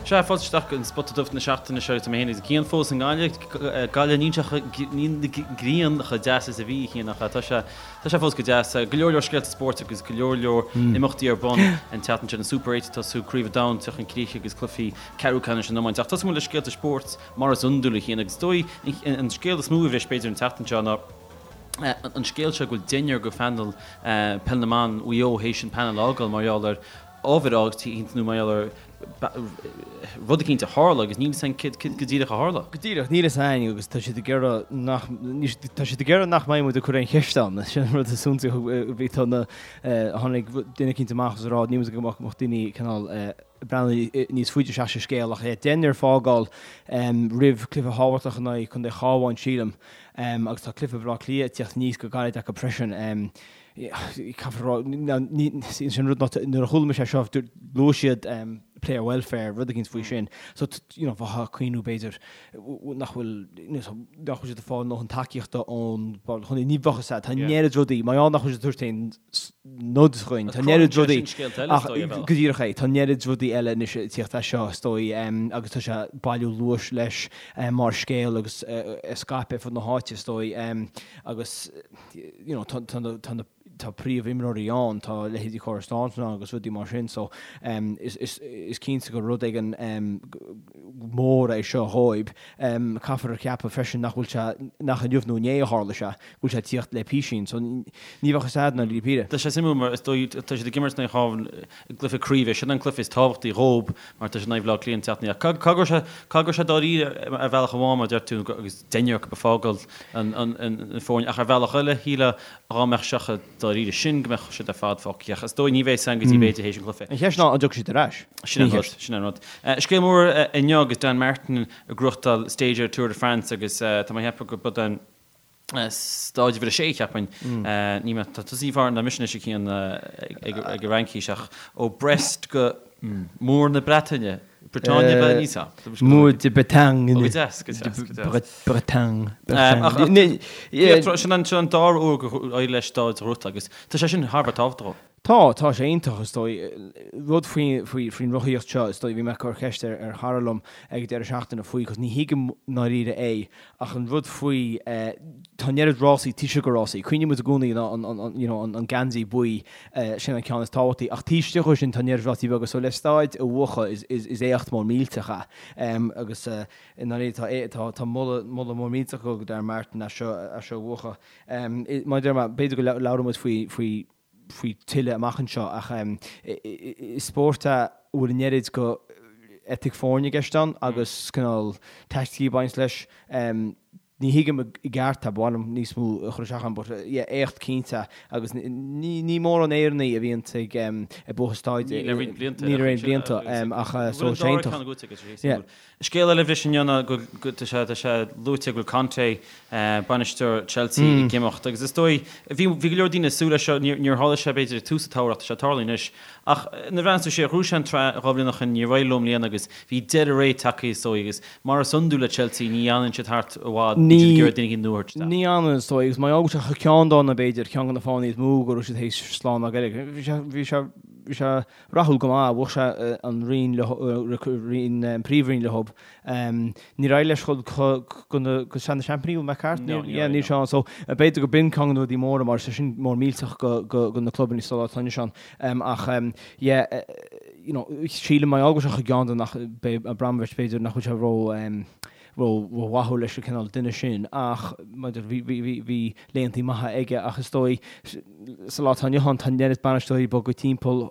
Sea, fáilte isteach go an Spota Dubh na seachtaine seo agus tá mé féin agus Cian fós i nGaillimh. Gaillimh, níl sé chomh, níl an ghrian chomh deas is a bhí, a Chian, ach tá sé, tá sé fós go deas. Go leor leor scéalta spóirt agus go leor leor imeachtaí ar bun an tseachtain seo, an Super 8 ag tosú, Craobh an Domhain ag teacht chun críche agus cluichí ceathrú ceannais an iomáint. Ach tosóidh muid le scéalta spóirt mar is iondúil, a Chian, agus is dóigh an scéal is mó a bhris b'fhéidir an tseachtain seo ná an scéal seo go bhfuil deichniúr de phainéal Peil na mBan Mhaigh Eo théis an painéal a fhágáil mar gheall ar ábhar eicínt nó mar gheall ar rud eicínt a tharla agus níl fhios againn céard go díreach a tharla. Go díreach, níl fhios againn agus tá siad ag iarraidh nach, tá siad ag iarraidh nach mbeidh muid ag cur aon cheist ann. Sin an rud is suntasaí a bhí, tá na, tháinig duine eicínt amach agus ag rá níl muid go mbeadh daoine cineál ag breathnú níos faide isteach sa scéal ach deichniúr ag fágáil roimh cluiche thábhachtach in aghaidh Contae Chabháin sílim agus tá cluiche Bhaile Átha Cliath ag tíocht aníos go gairid acu freisin. Caithfear a rá, sin rud nuair a chuala mise é seo, luaigh siad player welfare, rud eicínt faoi sin. So, you know, bheifeá ag cuimhniú b'fhéidir nach bhfuil, nach bhfuil siad ag fáil a ndóthain tacaíochta ón chontae, ní bheadh fhios a'd, tá an oiread rudaí, mar gheall nach bhfuil siad ag tabhairt aon nod dhuinn, tá an oiread rudaí, ach go díreach é, tá an oiread rudaí eile anois ag tíocht as seo, is dóigh, agus tá sé ag bailiú luais leis mar scéal agus ag scaipeadh ar fud na háite, is dóigh, agus. you know, tá, tá na, tá na, tá príomhimreoirí ann, tá leithéidí Cora Staunton ann agus rudaí mar sin, so um, is, is, is cinnte gur rud éigin um, mór é seo dhóibh. Um, caithfear a cheapadh freisin nach bhfuil sé, nach inniu nó inné a tharla sé, go bhfuil sé ag tíocht le písín, so ní bheadh fhios a'd i ndáiríre. Tá sé suimiúil mar is dóigh, tá siad ag imirt in aghaidh an Chabháin i gcluiche craoibhe, sin an cluiche is tábhachtaí dhóib mar tá siad in aghaidh Bhaile Átha Cliath an tseachtain ach caithfidh go raibh sé, caithfidh go raibh sé dáiríre ar bhealach amháin mar a deir tú agus deichniúr acu ag fágáil an foirne ach ar bhealach eile shílfeá dhá mbeadh sé chomh dáiríre sin go mbeadh siad ar fad fágtha ach is dóigh ní bheidh san go dtí b'fhéidir théis an chluiche. An cheist ná an dtiocfaidh siad ar ais? Sin an rud, sin an rud. Scéal mór inniu agus Dan Martin ag gnóthachtáil stage ar Tour de France agus tá mé ag ceapadh go b'é an stáid uimhir a sé cheapfainn. Ní mé, tá tusa níos fearr ná mise anois a Chian ag an Fhraincis ach ó Brest go Múr na Breataine. Bretagne ba níos ea. Mur de Bretagne. Ó, go deas, go deas, go deas. Bretagne. Bretagne. Sin an sin an dara huair gur éirigh leis stáid a ghnóthachtáil agus tá sé sin thar a bheith tábhachtach. Tá, tá sé iontach is dóigh. Rud faoi faoi faoin rothaíocht seo is dóigh bhí mé ag cur ceist ar ar chara liom ag an deireadh seachtaine faoi 'cause ní thuigim i ndáiríre é ach an rud faoi tá an oiread rásaí taobh istigh de rásaí. Cuimhníonn muid i gcónaí an an you know an an geansaí buí sin an ceann is tábhachtaí ach taobh istigh de sin tá an oiread rásaí beaga so le stáid a bhuachan is is is éacht mór millteach é agus i ndáiríre tá tá tá moladh moladh mór millteach go Darren Martin as seo as seo a bhuachan. Mar a deir mé b'fhéidir go labhróidh muid faoi faoi faoi tuilleadh amach anseo ach is spórt é a bhfuil an oiread go eitic foirne i gceist ann agus cineál taicticí ag baint leis. Ní thuigim i gceart é, ba mhaith liom níos mó a chur isteach ann but yeah éacht cinnte agus ní mórán Éireannaigh a bhíonn ag ag buachan stáid Ní le roinnt blianta. Ní le roinnt blianta ach so sé iontach. Scéal eile a bhris inniu ná go tá sé tá sé luaite go bhfuil Conte, bainisteoir Chelsea, ag imeacht agus is dóigh, bhí bhí go leor daoine ag súil leis seo, níor níor tharla sé b'fhéidir ag tús an tsamhraidh ach tá sé ag tarlú anois. Ach nuair a bhreathnaíonn tú siar, ghnóthaigh sé an tsraith 2 bhliain ó shin, níor éirigh leo i mbliana agus bhí deireadh ré tagtha is dóigh agus mar is iondúil le Chelsea ní fhanann siad thart i bhfad, bíonn siad ag iarraidh duine éigin nua a thabhairt isteach. Ní fhanann is dóigh agus mar gheall go bhfuil sé chomh ceanndána b'fhéidir, ceann de na fáthanna is mó go raibh siad théis slán a fhágáil. Bhí sé bhí sé bhí sé rathúil go maith, bhuaigh sé an roinn leo, an príomhroinn leo. Níor éirigh leis dul go go Sraith na Seaimpíní, bhfuil mé ceart? No, níor éirigh. Níl sé ann. So, b'fhéidir go b'in ceann de na rudaí móra mar tá sin mór millteach go go na clubanna sa lá atá inniu ann. Ach yeah, you know, sílim mar gheall go bhfuil sé chomh ceanndána nach beidh Abramovich b'fhéidir nach bhfuil sé ró ró-mhaithiúil leis an cineál duine sin ach bhí laethantaí maithe aige ach is dóigh sa lá atá inniu ann tá an oiread bainisteoirí ag bogadh timpeall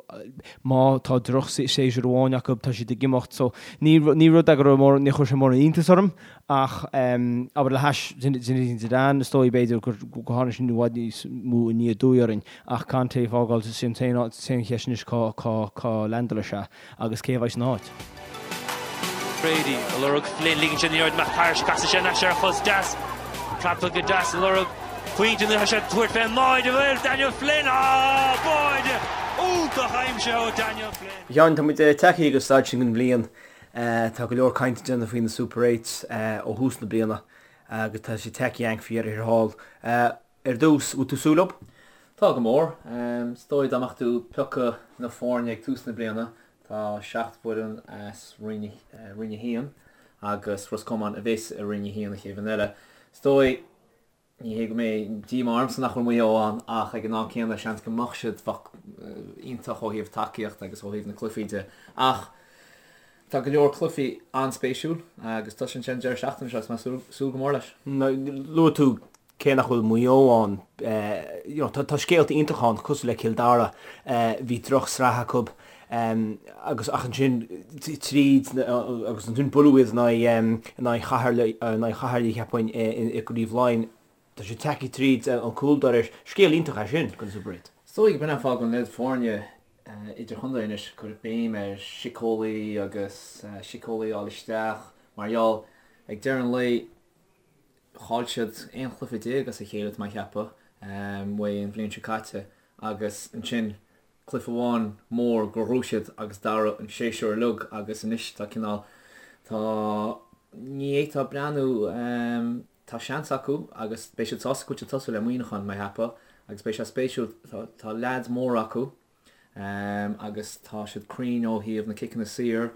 má tá droch-séasúr amháin acu tá siad ag imeacht so ní ní rud é go raibh mór ní chuir sé mórán iontas orm ach abair le hais Zinedine Zidane is dóigh b'fhéidir gur go tháinig sin i bhfad níos mó aniar aduaidh orainn ach Conte ag fágáil sin an t-aon cheist anois cá cá cá leaindeálfaidh sé agus cé a bheidh san áit? Brady ag lorg Flynn, ligeann sé an liathróid amach thairis, casann sé anois ar a chos deas, praptha go deas ag lorg pointe anois, tá sé ag tabhairt fén mbáide, bhfuil Daniel Flynn, á, báide iontach aimsithe ó Daniel Flynn. A Sheáin, tá muid tagtha go staid sin den bhliain. Tá go leor cainte déanta faoi na Super Eights ó thús na bliana agus tá sé tagtha againn faoi dheireadh thiar thall. Ar dtús, bhfuil tú ag súil leo? Tá go mór. Is dóigh dá mbeadh tú ag piocadh na foirne ag tús na bliana, Tá 7 bhfoireann as Roinn 1 agus Ros Comáin a bheas i Roinn 1 an chéad bhliain eile. Is dóigh, ní hé go mbeidh díomá ormsa nach bhfuil Maigh Eo ann ach ag an am céanna seans go mbeadh siad, bheadh iontach ó thaobh tacaíocht agus ó thaobh na cluichí de. Ach tá go leor cluichí an-spéisiúil agus tosaíonn sé an deireadh seachtaine seo agus tá mé ag súil go mór leis. Luaigh tú cé nach bhfuil Maigh Eo ann, you know, tá scéalta iontacha ann cosúil le Cill Dara, bhí drochsraith acu agus ach ansin tríd agus ansin buaileadh iad in aghaidh in aghaidh Chathair in aghaidh Chathair cheapfainn i gCraobh Laighean. Tá siad tagtha tríd an cúldoras. Scéal iontach é sin don Super 8. Is dóigh gurb in an fáth go bhfuil an oiread foirne idirchontae anois ag cur béim ar síceolaí agus síceolaí a fháil isteach mar gheall ag deireadh an lae Chaill siad 11 chluiche as a chéile, tá mé a cheapadh, uaidh an bhliain seo caite agus ansin cluiche amháin mór gur ghnóthaigh siad agus d'athraigh an séasúr uilig agus anois tá cineál, tá, ní fhéadfá breathnú, tá seans acu agus beidh siad sásta go bhfuil siad ag tosú le Muineachán, mé a cheapadh, agus beidh sé spéisiúil, tá, tá leaids móra acu. agus tá siad cruinn ó thaobh na ciceanna saor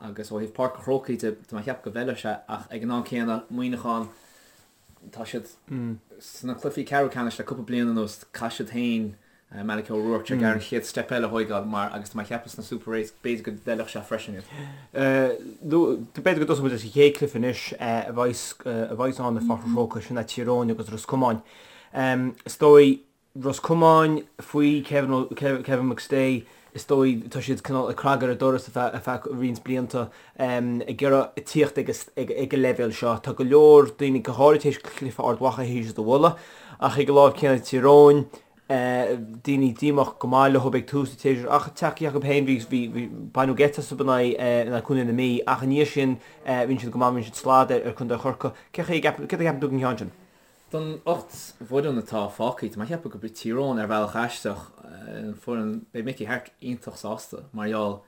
agus ó thaobh Páirc an Chrócaigh de, tá mé a cheapadh go bhfeilfeadh sé ach ag an am céanna, Muineachán, tá siad sna cluichí ceathrú ceannais le cúpla bliain anuas, caithfidh siad féin Malachy O'Rourke ag iarraidh an chéad step eile a thóigeáil mar agus tá mé a cheapadh sna Super Eights b'fhéidir go bhfeilfeadh sé freisin iad. B'fhéidir go dtosóidh muid leis an chéad chluiche anois a bheas ann i Pháirc an Chrócaigh, sin é Tír Eoghain agus Ros Comáin. Is dóigh Ros Comáin faoi Kevin McStay, is dóigh, tá siad cineál ag cnagadh ar an doras ar feadh roinnt blianta, ag iarraidh tíocht ag an leibhéal seo. Tá go leor daoine, go háirid théis cluiche Ard Mhacha, théis iad a mholadh, ach ag an láimh céanna Tír Eoghain, daoine díomách go maith leo ag tús an tséasúir ach tagtha acu féin, bhí, baineadh geit astu in aghaidh Contae na Mí ach i ndiaidh sin rinne siad go maith, rinne siad slad ar Chontae Chorcaí. Cé chaoi a gceapann, céard a cheapann tú den cheann sin? Den 8 bhfoireann atá fágtha, tá mé ag ceapadh gurb í Tír Eoghain ar bhealach aisteach an foireann, beidh Mickey Harte iontach sásta mar gheall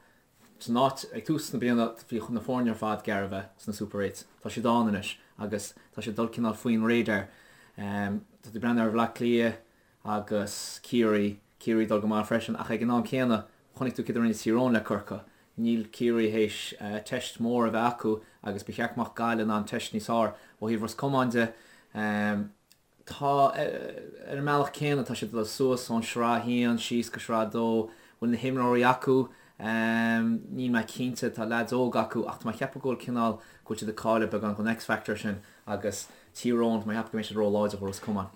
san áit, ag tús na bliana bhí na foirne ar fad gar a bheith sna Super Eights, tá siad ann anois agus tá siad ag dul cineál faoin radar. Tá tú ag breathnú ar Bhleá Cliath agus Ciarraí, Ciarraí ag dul go maith freisin ach ag an am céanna chonaic tú céard a rinne Tír Eoghain le Corcaigh, Níl Ciarraí théis teist mór a bheith acu agus ba cheart go mbeadh Gaillimh in ann teist níos fearr. Ó thaobh Ros Comáin de, tá, ar an mbealach céanna, tá siad ag dul suas ón Sraith 1 síos go Sraith 2. Bhfuil na himreoirí acu? Níl mé cinnte. Tá leaids óga acu ach tá mé ag ceapadh go bhfuil cineál, go bhfuil siad ag cailleadh beagán den X-factor sin agus Tír Eoghain, tá mé ag ceapadh go mbeidh siad ró-láidir do Ros Comáin.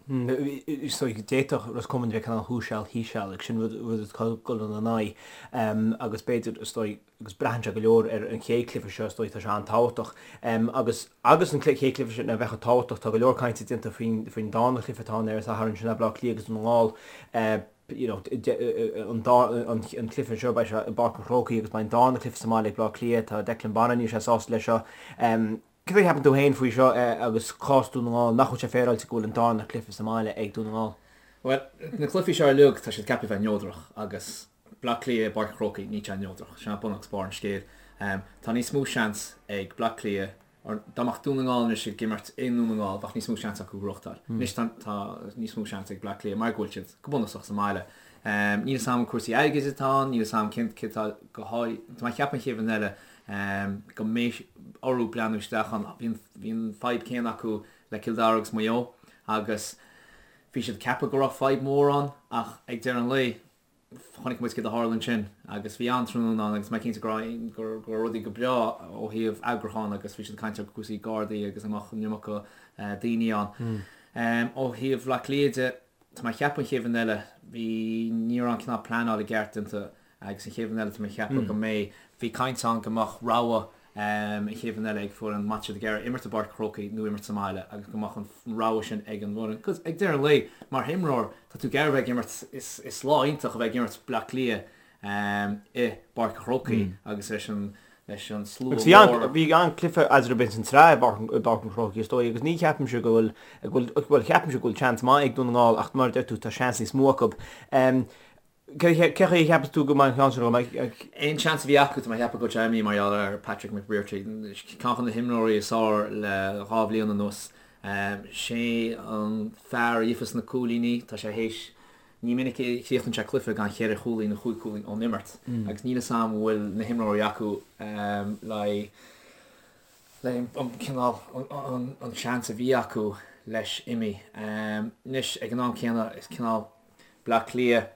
So d'fhéadfadh Ros Comáin bheith cineál thuas seal thíos seal agus sin rud rud atá ag dul ina n-aghaidh agus b'fhéidir is dóigh agus braitheann sé go leor ar an chéad chluiche seo is dóigh tá sé an-tábhachtach agus agus an chéad chluiche sin a bheith chomh tábhachtach tá go leor cainte déanta faoin faoin darna cluiche atá ann ar an Satharn sin é Bleá Cliath agus Dún na nGall you know an dá an cluiche seo beidh sé i bPáirc an Chrócaigh agus beidh an darna cluiche sa mbaile ag Bleá Cliath tá Declan Bonner níl sé sásta leis seo. Cad é a cheapann tú féin faoi seo agus cás Dún na nGall? Nach bhfuil sé féaráilte go bhfuil an darna cluiche sa mbaile ag Dún na nGall? Bhuel, na cluichí seo uilig, tá siad ceaptha a bheith neodrach agus Bleá Cliath i bPáirc an Chrócaigh, níl sé neodrach. Sin é bun agus barr an scéil. Tá níos mó seans ag Bleá Cliath, or dá mbeadh Dún na nGall anois ag imirt i nDún na nGall, bheadh níos mó seans acu gnóthachtáil. Anois tá níos mó seans ag Bleá Cliath mar go bhfuil siad go bunúsach sa mbaile. Níl a fhios agam cúrsaí airgid atá ann, níl a fhios agam cén cé atá go háirithe, tá mé ag ceapadh an chéad bhliain eile go mbeidh orthu breathnú isteach ann. Bhí an fadhb céanna acu le Cill Dara agus Maigh Eo agus bhí siad ag ceapadh go raibh fadhb mhór ann ach ag deireadh an lae chonaic muid céard a tharla ansin agus bhí an-tráthnóna ann agus mé cinnte go raibh go raibh rudaí go breá ó thaobh eagrúcháin agus bhí siad ag caint ar cúrsaí gardaí agus an mbeadh an iomarca daoine ann. Ó thaobh Bhaile Átha Cliath de, tá mé ag ceapadh an chéad bhliain eile, bhí, ní raibh an cineál pleanáil i gceart déanta Agus an chéad bhliain eile tá mé ag ceapadh go mbeidh, bhí caint ann go mbeadh rogha an chéad bhliain eile ag foireann má tá siad ag iarraidh imirt i bPáirc an Chrócaigh nó imirt sa mbaile agus go mbeadh an rogha sin ag an bhfoireann. Cos ag deireadh an lae, mar imreoir, tá tú ag iarraidh a bheith ag imirt, is lá iontach a bheith ag imirt Bleá Cliath i bPáirc an Chrócaigh agus leis an leis an slua mór. Agus bhí an-chluiche eatarthu ins an tsraith i bPáirc an Chrócaigh is dóigh agus ní cheapaimse go bhfuil, go bhfuil, bhuel ceapaimse go bhfuil seans maith ag Dún na nGall ach mar a deir tú tá seans níos mó acu. Cé chaoi a cheapas tú go mbeidh an ceann sin agam? Aon seans a bhí acu, tá mé ag ceapadh go bhfuil sé imithe mar gheall ar Patrick McBrearty, ceann de na himreoirí is fearr le 2 bhliain anuas. Sé an fear a gheofas na cúilíní, tá sé théis. Ní minic a chríochnaíonn sé cluiche gan cheithre chúilín nó chúig chúilín ón imirt agus níl 'fhios a'm an bhfuil na himreoirí acu le le an cineál an seans a bhí acu leis imithe. Anois ag an am céanna is cineál Bleá Cliath,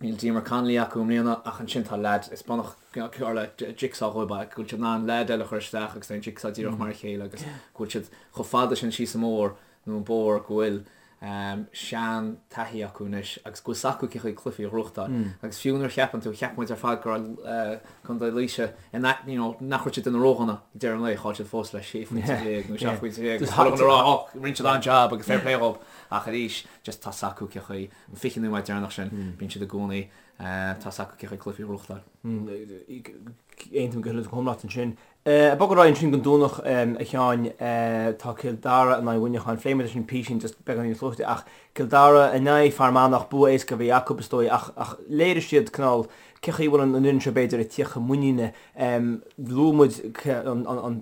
níl Diarmuid Connolly acu i mbliana ach ansin tá leaid, is bunach cosúil le jigsaw dhóibh go bhfuil siad in ann leaid eile a chur isteach agus tá an jigsaw díreach mar a chéile agus go bhfuil siad chomh fada sin síos an mbóthar nó an bóthar go bhfuil sean-taithí acu anois agus go bhfuil 's acu cé chaoi cluichí a ghnóthachtáil. Agus fiú nuair a cheapann tú, cheap muid ar fad go raibh Contae Laoise in a, you know, nach raibh siad duine ródhona ag deireadh an lae, chaill siad fós le 16 phointe nó 17 phointe agus chuile dhuine ag rá, oh, rinne siad an-jab agus fair play dhóibh. Ach arís, just tá 's acu cé chaoi, an 20 nóiméad deireanach sin, bíonn siad i gcónaí, tá 's acu cé chaoi cluichí a ghnóthachtáil. Aontaím go huile is go hiomlán leat ansin. Ag bogadh ar aghaidh ansin don Domhnach, a Sheáin, tá Cill Dara in aghaidh Mhuineacháin. Phléigh muid sin písín just beagán níos luaithe ach Cill Dara in aghaidh Fear Manach, bua éasca a bhí acu is dóigh ach ach léirigh siad cineál cé chaoi a bhfuil an fhoireann seo b'fhéidir ag tíocht chun muiníne. Luaigh muid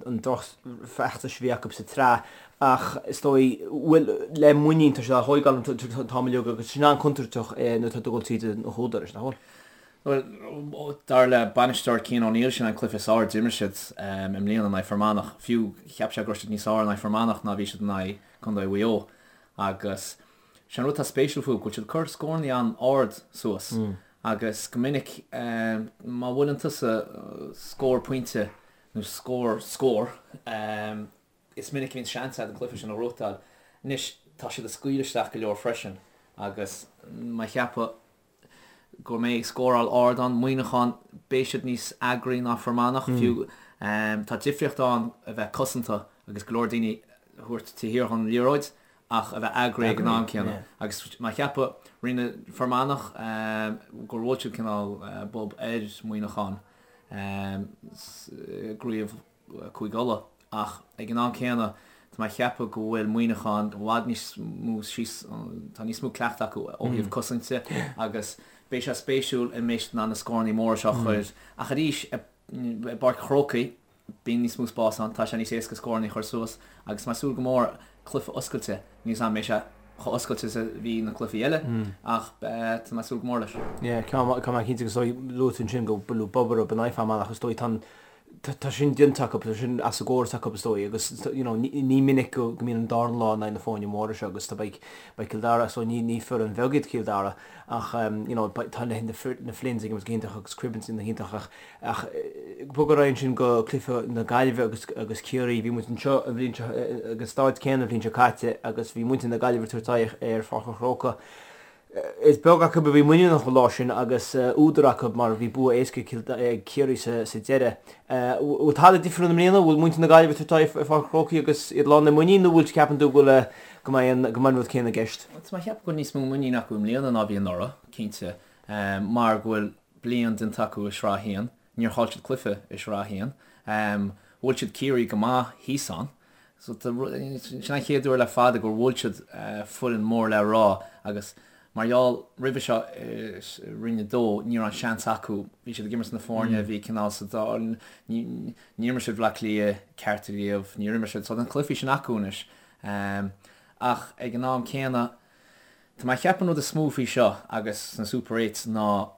an drochfheachtas a bhí acu sa tsraith ach is dóigh bhfuil le muinín tá siad á thógáil an t-am uilig agus sin an-chontúirteach nuair atá tú ag dul tríd an húdar, nach bhfuil? Bhuel, dar le bainisteoir Cian O'Neill, sin an cluiche is fearr a d'imir siad i mbliana in aghaidh Fear Manach. Fiú, cheap sé go raibh siad níos fearr in aghaidh Fear Manach ná bhí siad in aghaidh Contae Mhaigh Eo. Agus sé an rud atá spéisiúil fúthu, go bhfuil siad ag cur scóranna an-ard suas agus go minic má bhuaileann tusa scór pointe nó scór scór, is minic a bhíonn seans agat an cluiche sin a ghnóthachtáil. Anois, tá siad ag scaoileadh isteach go leor freisin agus má cheapadh go mbeidh scóráil ard ann. Muineachán, beidh siad níos eagraí ná Fear Manach fiú. Tá difríocht ann a bheith cosanta agus go leor daoine a thabhairt taobh thiar dhon liathróid ach a bheith eagraí ag an am céanna. Agus má cheapadh, rinne Fear Manach gur bhuail siad cineál bob ar Mhuineachán i gcraobh Cúige Uladh ach ag an am céanna tá mé ag ceapadh go bhfuil Muineachán i bhfad níos mó síos, tá níos mó cleachtadh acu ó thaobh cosainte agus beidh sé spéisiúil an mbeidh siad in ann na scóranna móra seo a chur ach arís i bPáirc an Chrócaigh bíonn níos mó spás ann, tá sé níos éasca scóranna a chur suas agus tá mé ag súil go mór cluiche oscailte, níl 's agam an mbeidh sé chomh oscailte is a bhí na cluichí eile ach tá mé ag súil go mór leis. Yeah, ceann maith cinnte agus luaigh tú ansin go bhfuil bob orthu in aghaidh Fear Manach is dóigh tá an Tá sin déanta acu, tá sin as an gcóras acu is dóigh agus you know ní minic go mbíonn an darna lá in aghaidh na foirne móra seo agus tá beidh beidh Cill Dara so ní ní foireann bheag iad Cill Dara ach you know beidh tá na na Flynns ag imirt go hiontach agus Cribbins ina hiontach ach ach bog ar aghaidh ansin go cluiche na Gaillimhe agus agus Ciarraí bhí muid anseo an bhliain seo ag an staid céanna an bhliain seo caite agus bhí muintir na Gaillimhe ag tabhairt aghaidh ar Pháirc an Chrócaigh. Is beag acu a bhí muiníneach an lá sin agus údar acu mar bhí bua éasca ag Ciarraí sa deireadh. Bhfuil tada difriúil i mbliana? Bhfuil muintir na Gaillimhe ag tabhairt aghaidh ar Pháirc an Chrócaigh agus iad lán le muinín nó bhfuil ceapann tú go bhfuil go mbeidh an go mbeidh an rud céanna i gceist? Tá mé ag ceapadh go bhfuil níos mó muinín acu i mbliana ná bhí anuraidh, cinnte, mar go bhfuil bliain déanta acu i Sraith 1. Níor chaill siad cluiche i Sraith 1. Bhuail siad Ciarraí go maith thíos ann. So sin an chéad uair le fada gur bhuail siad foireann mór le rá agus mar gheall roimhe seo i Roinn 2 ní raibh an seans acu, bhí siad ag imirt na foirne a bhí cineál sa dá, níor imir siad Bhleá Cliath ceart riamh, níor imir siad, so tá na cluichí sin acu anois. Ach ag an am céanna tá mé ag ceapadh an rud is mó faoi seo agus sna Super Eights ná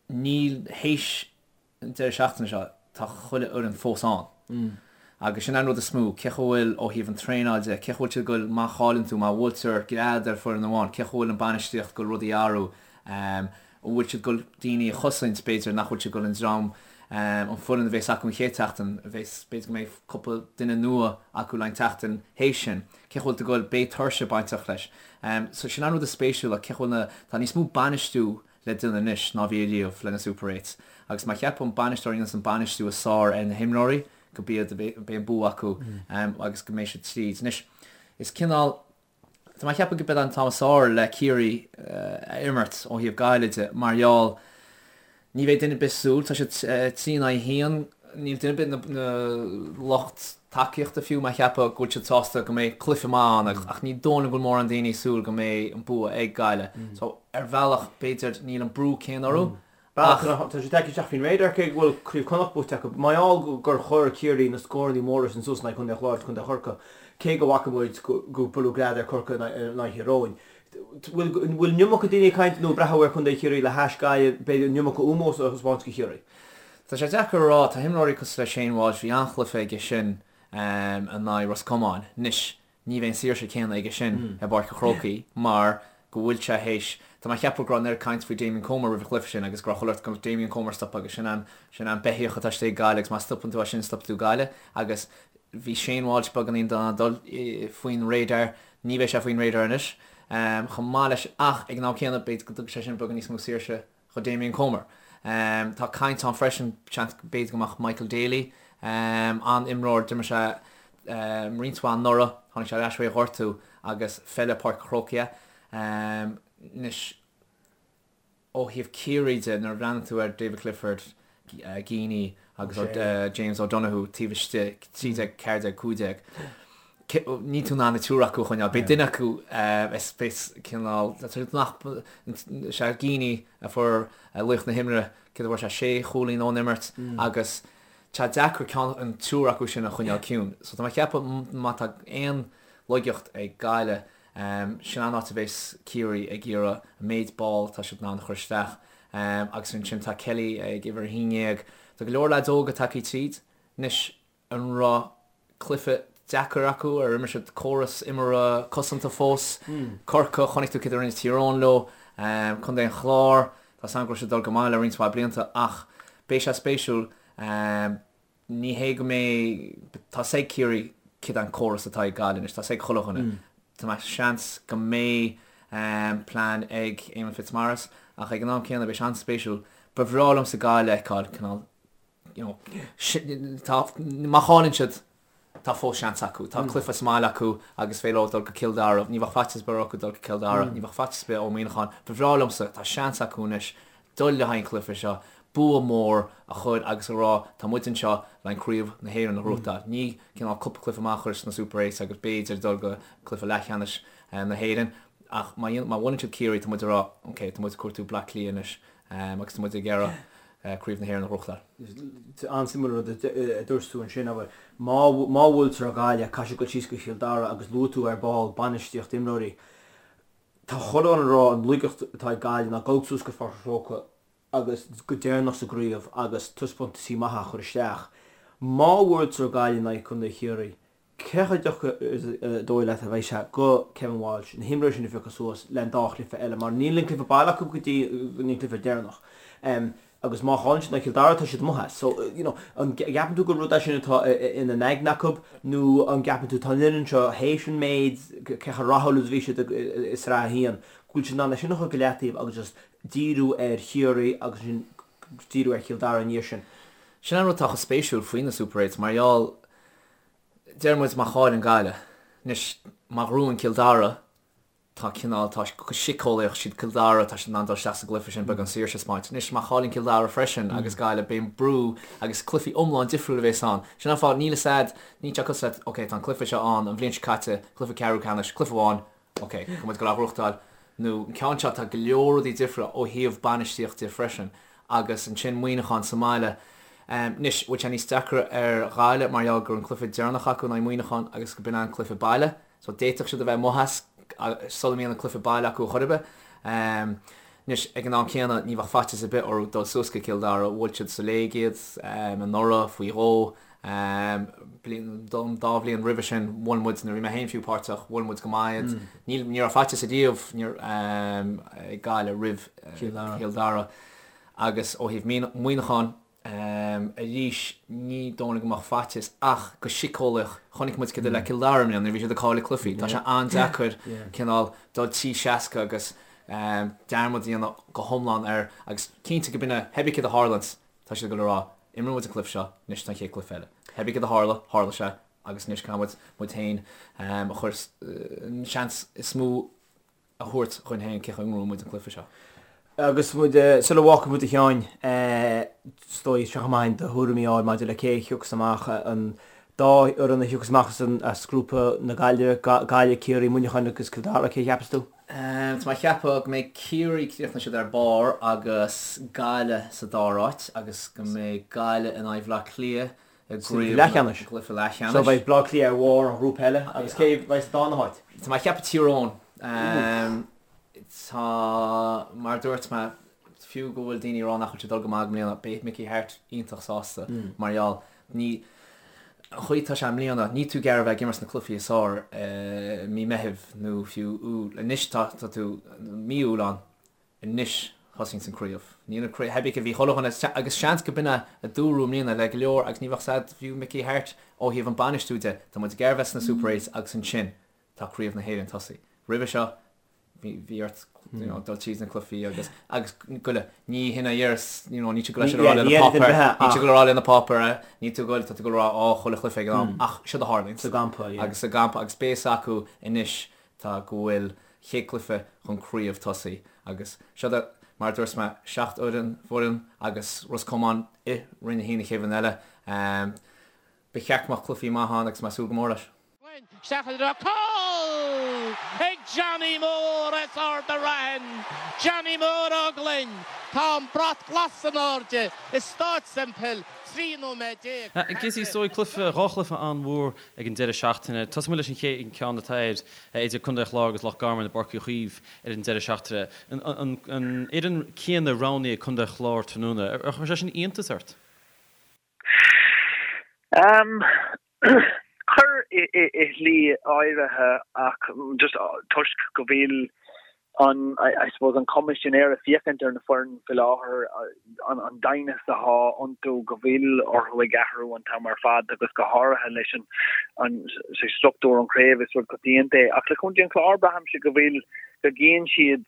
níl théis an deireadh seachtaine seo, tá chuile fhoireann fós ann. Agus sin an rud is mó, cé chomh bhfuil ó thaobh an traenáil de, cé chomh bhfuil siad ag goil, má chailleann tú, má bhuailtear gread ar foireann amháin, cé chomh bhfuil an bainistíocht ag goil rudaí a athrú, an bhfuil siad ag goil daoine a chosaint, b'fhéidir, nach bhfuil siad ag goil an dream, an foireann a bhéas acu an chéad tseachtain, a bhéas, b'fhéidir go mbeidh cúpla duine nua acu le an tseachtain théis sin, cé chomh bhfuil tú ag goil, beidh tuirse bainteach leis. So sin an rud is spéisiúla, cé chomh bhfuil na, tá níos mó bainistiú le déanamh anois ná bhí ariamh le na Super Eights agus má cheapann bainisteoir a dhéananns an bainistiú is fearr ar na himreoirí go b'iad beidh an bua acu agus go mbeidh siad tríd. Anois is cineál tá mé ag ceapadh go b'é an t-am is fearr le Ciarraí a imirt ó thaobh Gaillimh de mar gheall ní bheidh duine ar bith súil tá siad 3 in aghaidh 1 Níl duine ar bith na lucht tacaíochta fiú mé a cheapadh go bhfuil siad sásta go mbeidh cluiche maith ann ach ní dóigh liom go bhfuil mórán daoine ag súil go mbeidh an bua ag Gaillimh. So ar bhealach b'fhéidir níl an brú céanna orthu ach. Tá sé tagtha isteach faoin radar cé go bhfuil Craobh Chonnacht buaite acu. Mar gheall gur chuir Ciarraí na scóranna móra sin suas in aghaidh Chontae an Chláir agus Contae Chorcaí, cé go bhfaca muid go buaileadh gread ar Chorcaigh in aghaidh Thír Eoghain. Bhfuil bhfuil an iomarca daoine ag caint nó ag breathnú ar Chontae Chiarraí le hais Gaillimh, b'fhéidir an iomarca ómós a thaispeáint do Chiarraí? Tá sé deacair a rá, tá imreoirí cosúil le Shane Walsh, bhí an-chluiche aige sin in aghaidh Ros Comáin. Anois, ní bheidh an saoirse céanna aige sin i bPáirc an Chrócaigh mar go bhfuil sé théis, tá mé a cheapadh go raibh an oiread caint faoi Damien Comer roimh an chluiche sin agus go raibh chuile shórt go mbeadh Damien Comer stoptha agus sin an, sin an beithíoch atá istigh ag Gaillimh agus má stopann tú é sin stopfaidh tú Gaillimh agus bhí Shane Walsh beagáinín dul faoin radar, ní bheidh sé faoin radar anois chomh maith leis ach ag an am céanna b'fhéidir go dtugfaidh sé sin beagán níos mó saoirse do Damien Comer. Tá caint ann freisin, seans, b'fhéidir go mbeadh Michael Daly, an-imreoir, d'imir sé roinnt mhaith anuraidh, tháinig sé ar ais uaidh ghortú agus feileann Páirc an Chrócaigh é. Anois, ó thaobh Ciarraí de, nuair a bhreathnaíonn tú ar David Clifford, Geaney agus James O'Donoghue taobh istigh, 13, 14, 15, níl tú in ann an triúr acu a choinneáil. Beidh duine acu is beidh cineál, nach, sé Geaney a fuair laoch na himeartha, céard a fuair sé, sé chúilín ón imirt agus tá deacair ceann, an triúr acu sin a choinneáil ciúin. So tá mé ag ceapadh má tá aon laigeacht ag Gaillimh, sin an áit a bheas Ciarraí ag iarraidh an méid ball atá siad in ann a chur isteach. Agus ansin tá Kelly ag uimhir 11. Tá go leor leaids óga tagtha tríd anois. An raibh cluiche deacair acu? Ar imir siad córas imeartha cosanta fós? Corcaigh, chonaic tú céard a rinne Tír Eoghain leo. Contae an Chláir, tá a fhios agam go raibh siad ag dul go maith le roinnt mhaith blianta ach beidh sé spéisiúil. Ní hé go mbeidh, tá a fhios ag Ciarraí céard é an córas atá ag Gaillimh anois, tá a fhios ag chuile dhuine. Tá mé seans go mbeidh plean ag Eamon Fitzmaurice ach ag an am céanna beidh sé an-spéisiúil. Ba bhreá liomsa Gaillimh a fheiceáil cineál you know, tá, má chailleann siad, tá fós seans acu. Tá cluiche sa mbaile acu agus féidir leo dul go Cill Dara. Ní bheadh faitíos ar bith orthu dul go Cill Dara, ní bheadh faitíos ar bith ó Muineachán. Ba bhreá liomsa, tá seans acu anois dul le haghaidh an chluiche seo, bua mór a chur agus a rá tá muid anseo le craobh na hÉireann a ghnóthachtáil. Ní cineál cúpla cluiche maith a chur sna Super Eights agus b'fhéidir dul go cluiche leathcheannais na hÉireann. Ach má má bhuaileann siad Ciarraí tá muid ag rá ok tá muid ag cuartú Bleá Cliath anois agus tá muid ag iarraidh Craobh na hÉireann a ghnóthachtáil. An-suimiúil an rud a dúirt tú ansin, abair, má má bhuailtear Gaillimh, caithfidh siad dul síos go Cill Dara agus luaigh tú ar ball bainistíocht imreoirí. Tá chuile dhuine ag rá an laigeacht atá ag Gaillimh ná dul suas go Pháirc an Chrócaigh agus go deireanach sa gcraobh agus taispeántaisí maithe a chur isteach. Má bhuailtear Gaillimh in aghaidh Contae Chiarraí, Cé chomh deacair is dóigh leat a bheidh sé go Kevin Walsh na himreoirí sin a phiocadh suas le an dá chluiche eile mar níl an cluiche baile acu go dtí an cluiche deireanach agus má chailleann siad in aghaidh Chill Dara tá siad amuigh as. So, you know, an gceapann tú gur rud é sin atá ina n-aigne acu nó an gceapann tú tá an fhoireann seo théis an méid cé chomh rathúil is a bhí siad i Sraith 1 go bhfuil siad in ann é sin a chur go leataobh agus just díriú ar Chiarraí agus ansin díriú ar Chill Dara i ndiaidh sin. Sin an rud atá chomh spéisiúil faoi na Super Eights mar gheall Deir muid má chailleann Gaillimh. Anois, má ghnóthaíonn Cill Dara, tá cineál, tá go síceolaíoch, siad Cill Dara, tá siad in ann dul isteach sa gcluiche sin, beagán saoirse a 'speáint. Anois, má chailleann Cill Dara freisin agus Gaillimh, beidh an brú agus cluichí iomlán difriúil a bhéas ann. Sin an fáth, níl fhios a'd, níl sé cosúil le, ok, tá an cluiche seo ann, an bhliain seo caite, cluiche ceathrú ceannais, cluiche amháin, Ok, tá muid ag dul á ghnóthachtáil. Nó an ceann seo, tá go leor rudaí difriúla ó thaobh bainistíocht de freisin. Agus ansin Muineachán sa mbaile. Anois, bhfuil sé níos deacra ar Ghaillimh mar gheall gur an cluiche deireanach acu in aghaidh Muineachán agus go b'in an cluiche baile. So d'fhéadfadh siad a bheith amuigh as sula mbíonn an cluiche baile acu chor ar bith. Anois, ag an am céanna, ní bheadh faitíos ar bith orthu dul suas go Cill Dara. Bhuail siad sa léig iad anuraidh faoi dhó. Bliain, dá bhliain roimhe sin, bhuail muid, nuair a bhí mé féin fiú páirteach, bhuail muid go maith iad. Níl, ní raibh faitíos ariamh ag Gaillimh roimh Chill Dara. Agus ó thaobh Muineacháin, arís, ní dóigh liom go mbeadh faitíos ach go síceolaíoch, chonaic muid céard a le Cill Dara i mbliana nuair a bhí siad ag cailleadh cluichí. Tá sé an-deacair cineál dul 360 agus dearmad a dhéanamh go hiomlán air agus cinnte go b'in é, pé ar bith céard a tharlaíonns, Tá siad ag dul a rá, imreoidh muid an cluiche seo, anois tá an chéad cluiche eile. Pé ar bith céard a tharla, tharla sé, agus anois caithfidh muid muid féin a chur, an seans is mó a thabhairt dhúinn féin cé chaoi a ngnóthóidh muid an cluiche seo. Agus muid, sula bhfágfaidh muid a Sheáin, is dóigh, seo chomh maith do thuairimí a fháil maidir le cé a thiocfas amach, an dá fhoireann a thiocfas amach as grúpa na Gaillimhe, Gaillimh, Ciarraí, Muineachán agus Cill Dara, cé a cheapas tú? Tá mé ag ceapadh go mbeidh Ciarraí, críochnóidh siad ar barr agus Gaillimh sa dara háit agus go mbeidh Gaillimh in aghaidh Bhaile Átha Cliath i gcraobh leathcheannais. gcluiche leathcheannais. So beidh Baile Átha Cliath ar bharr an ghrúpa eile agus cé a bheidh sa darna háit? Tá mé ag ceapadh Tír Eoghain. Tá, mar a dúirt mé, fiú go bhfuil daoine ag rá nach bhfuil siad ag dul go maith i mbliana, beidh Mickey Harte iontach sásta mar gheall, ní, an chaoi atá sé i mbliana, níl tú ag iarraidh a bheith ag imirt sna cluichí is fearr i mí Meithimh nó fiú Iúil. Anois tá, tá tú, mí Iúil ann, anois thosaíonns an craobh. Níl an craobh, theibí bhí chuile dhuine, agus seans go b'in é a dúradh i mbliana le go leor agus ní bheadh sad fiú Mickey Harte ó thaobh an bainistiú de, tá muid ag iarraidh bheith sna Super Eights agus ansin tá craobh na hÉireann tosaí. Roimhe seo bhí ort you know, dul tríd na cluichí agus agus goile ní hin a dhéaras you know, níl tú ag goil a rá le na páipéir níl tú ag goil a rá le na páipéir níl tú ag goil tá tú ag goil a rá á chuile chluiche ag an am ach seo a tharlaíonn sa gcampa yeah. agus sa gcampa agus beidh a fhios acu anois tá go bhfuil chéad cluiche chun craobh tosaí agus seo do mar a dúirt mé 7 fhoireann foireann agus Ros Comáin i Roinn 1 an chéad bhliain eile ba cheart go mbeadh cluichí maith ann agus mé ag súil go mór leis. Isteach i dtreo cúl ag Johnny Mór as Ard an Raithin. Johnny Mór Ó Gloinn. Tá an brat glas in airde i Stáid Semple 13 nóiméad Gizzy, is dóigh, cluiche, dhá chluiche an-mhór ag an deireadh seachtaine. Tosóidh muid leis an chéad ceann atá air, idir Contae an Chláir agus Loch Garman i bPáirc Uí Chaoimh ar an deireadh seachtaine. An fhoireann céanna roghnaithe ag Contae an Chláir tráthnóna. Ar chuir sé sin iontas ort? Chuir i shlí áirithe ach just toisc go bhfuil an, I suppose, an chuma sin air ag féachaint ar na foireann faoi láthair, an doimhneas atá iontu, go bhfuil orthu ag athrú an t-am ar fad agus go háirithe leis an struchtúr an chraobh is rud coitianta é. Ach le Contae an Chláir braithimse go bhfuil, go gcíonn siad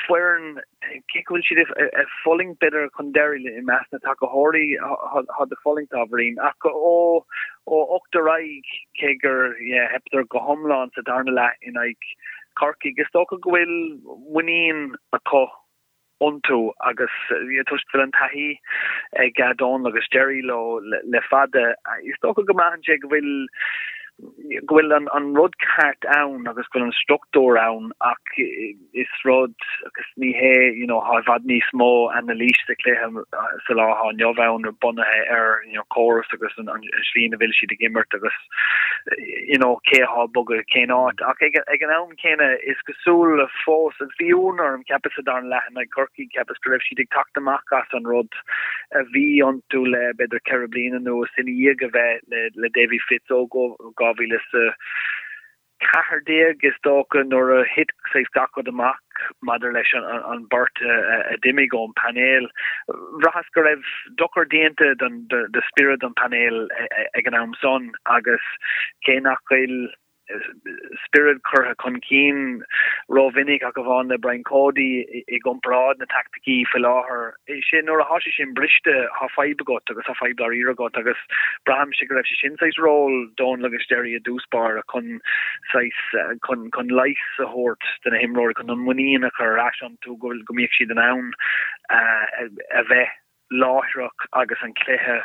foireann, cé go bhfuil siad ag fulaingt b'fhéidir chun deiridh i measc na tacaitheoirí, tá ag fulaingt ábhairín, ach ó 8 ar aghaidh, cé gur theipeadar go hiomlán sa darna leath in aghaidh Chorcaigh, is dócha go bhfuil muinín acu iontu agus toisc go bhfuil an taithí ag Donal agus Jerry leo le fada, is dócha go mbraitheann sé go bhfuil go bhfuil an rud ceart ann agus go bhfuil an struchtúr ann ach is rud agus ní hé you know tá i bhfad níos mó anailís sa chluiche sa lá atá inniu ann bunaithe ar you know córas agus an slí ina bhfuil siad ag imirt agus you know cé atá ag bogadh cén áit ach ag, ag an am céanna is cosúil fós agus bhí ionadh orm cheapas sa darna leath in aghaidh Corcaigh cheapas go raibh siad ag teacht amach as an rud a bhí iontu le b'fhéidir 4 bliana anuas ina dhiaidh a bheith le Davy Fitz ó 2014 is dócha nuair a thit saghas gach rud amach maidir leis an beirt a d'imigh ón bpainéal. Bhraitheas go raibh dochar déanta do spiorad an phainéil ag an am san agus cé nach bhfuil spiorad curtha chun cinn rómhinic ach amháin le Brian Cody i gcomparáid na taicticí faoi láthair. Sé nuair atá sé sin briste tá fadhb agat agus tá fadhb dáiríre agat agus braithimse go raibh sé sin saghas ról Donal agus Jerry i dtús báire chun saghas chun chun leigheas a thabhairt do na himreoirí chun an muinín a chur ar ais iontu go go mbíodh siad in ann a bheith láithreach agus an cluiche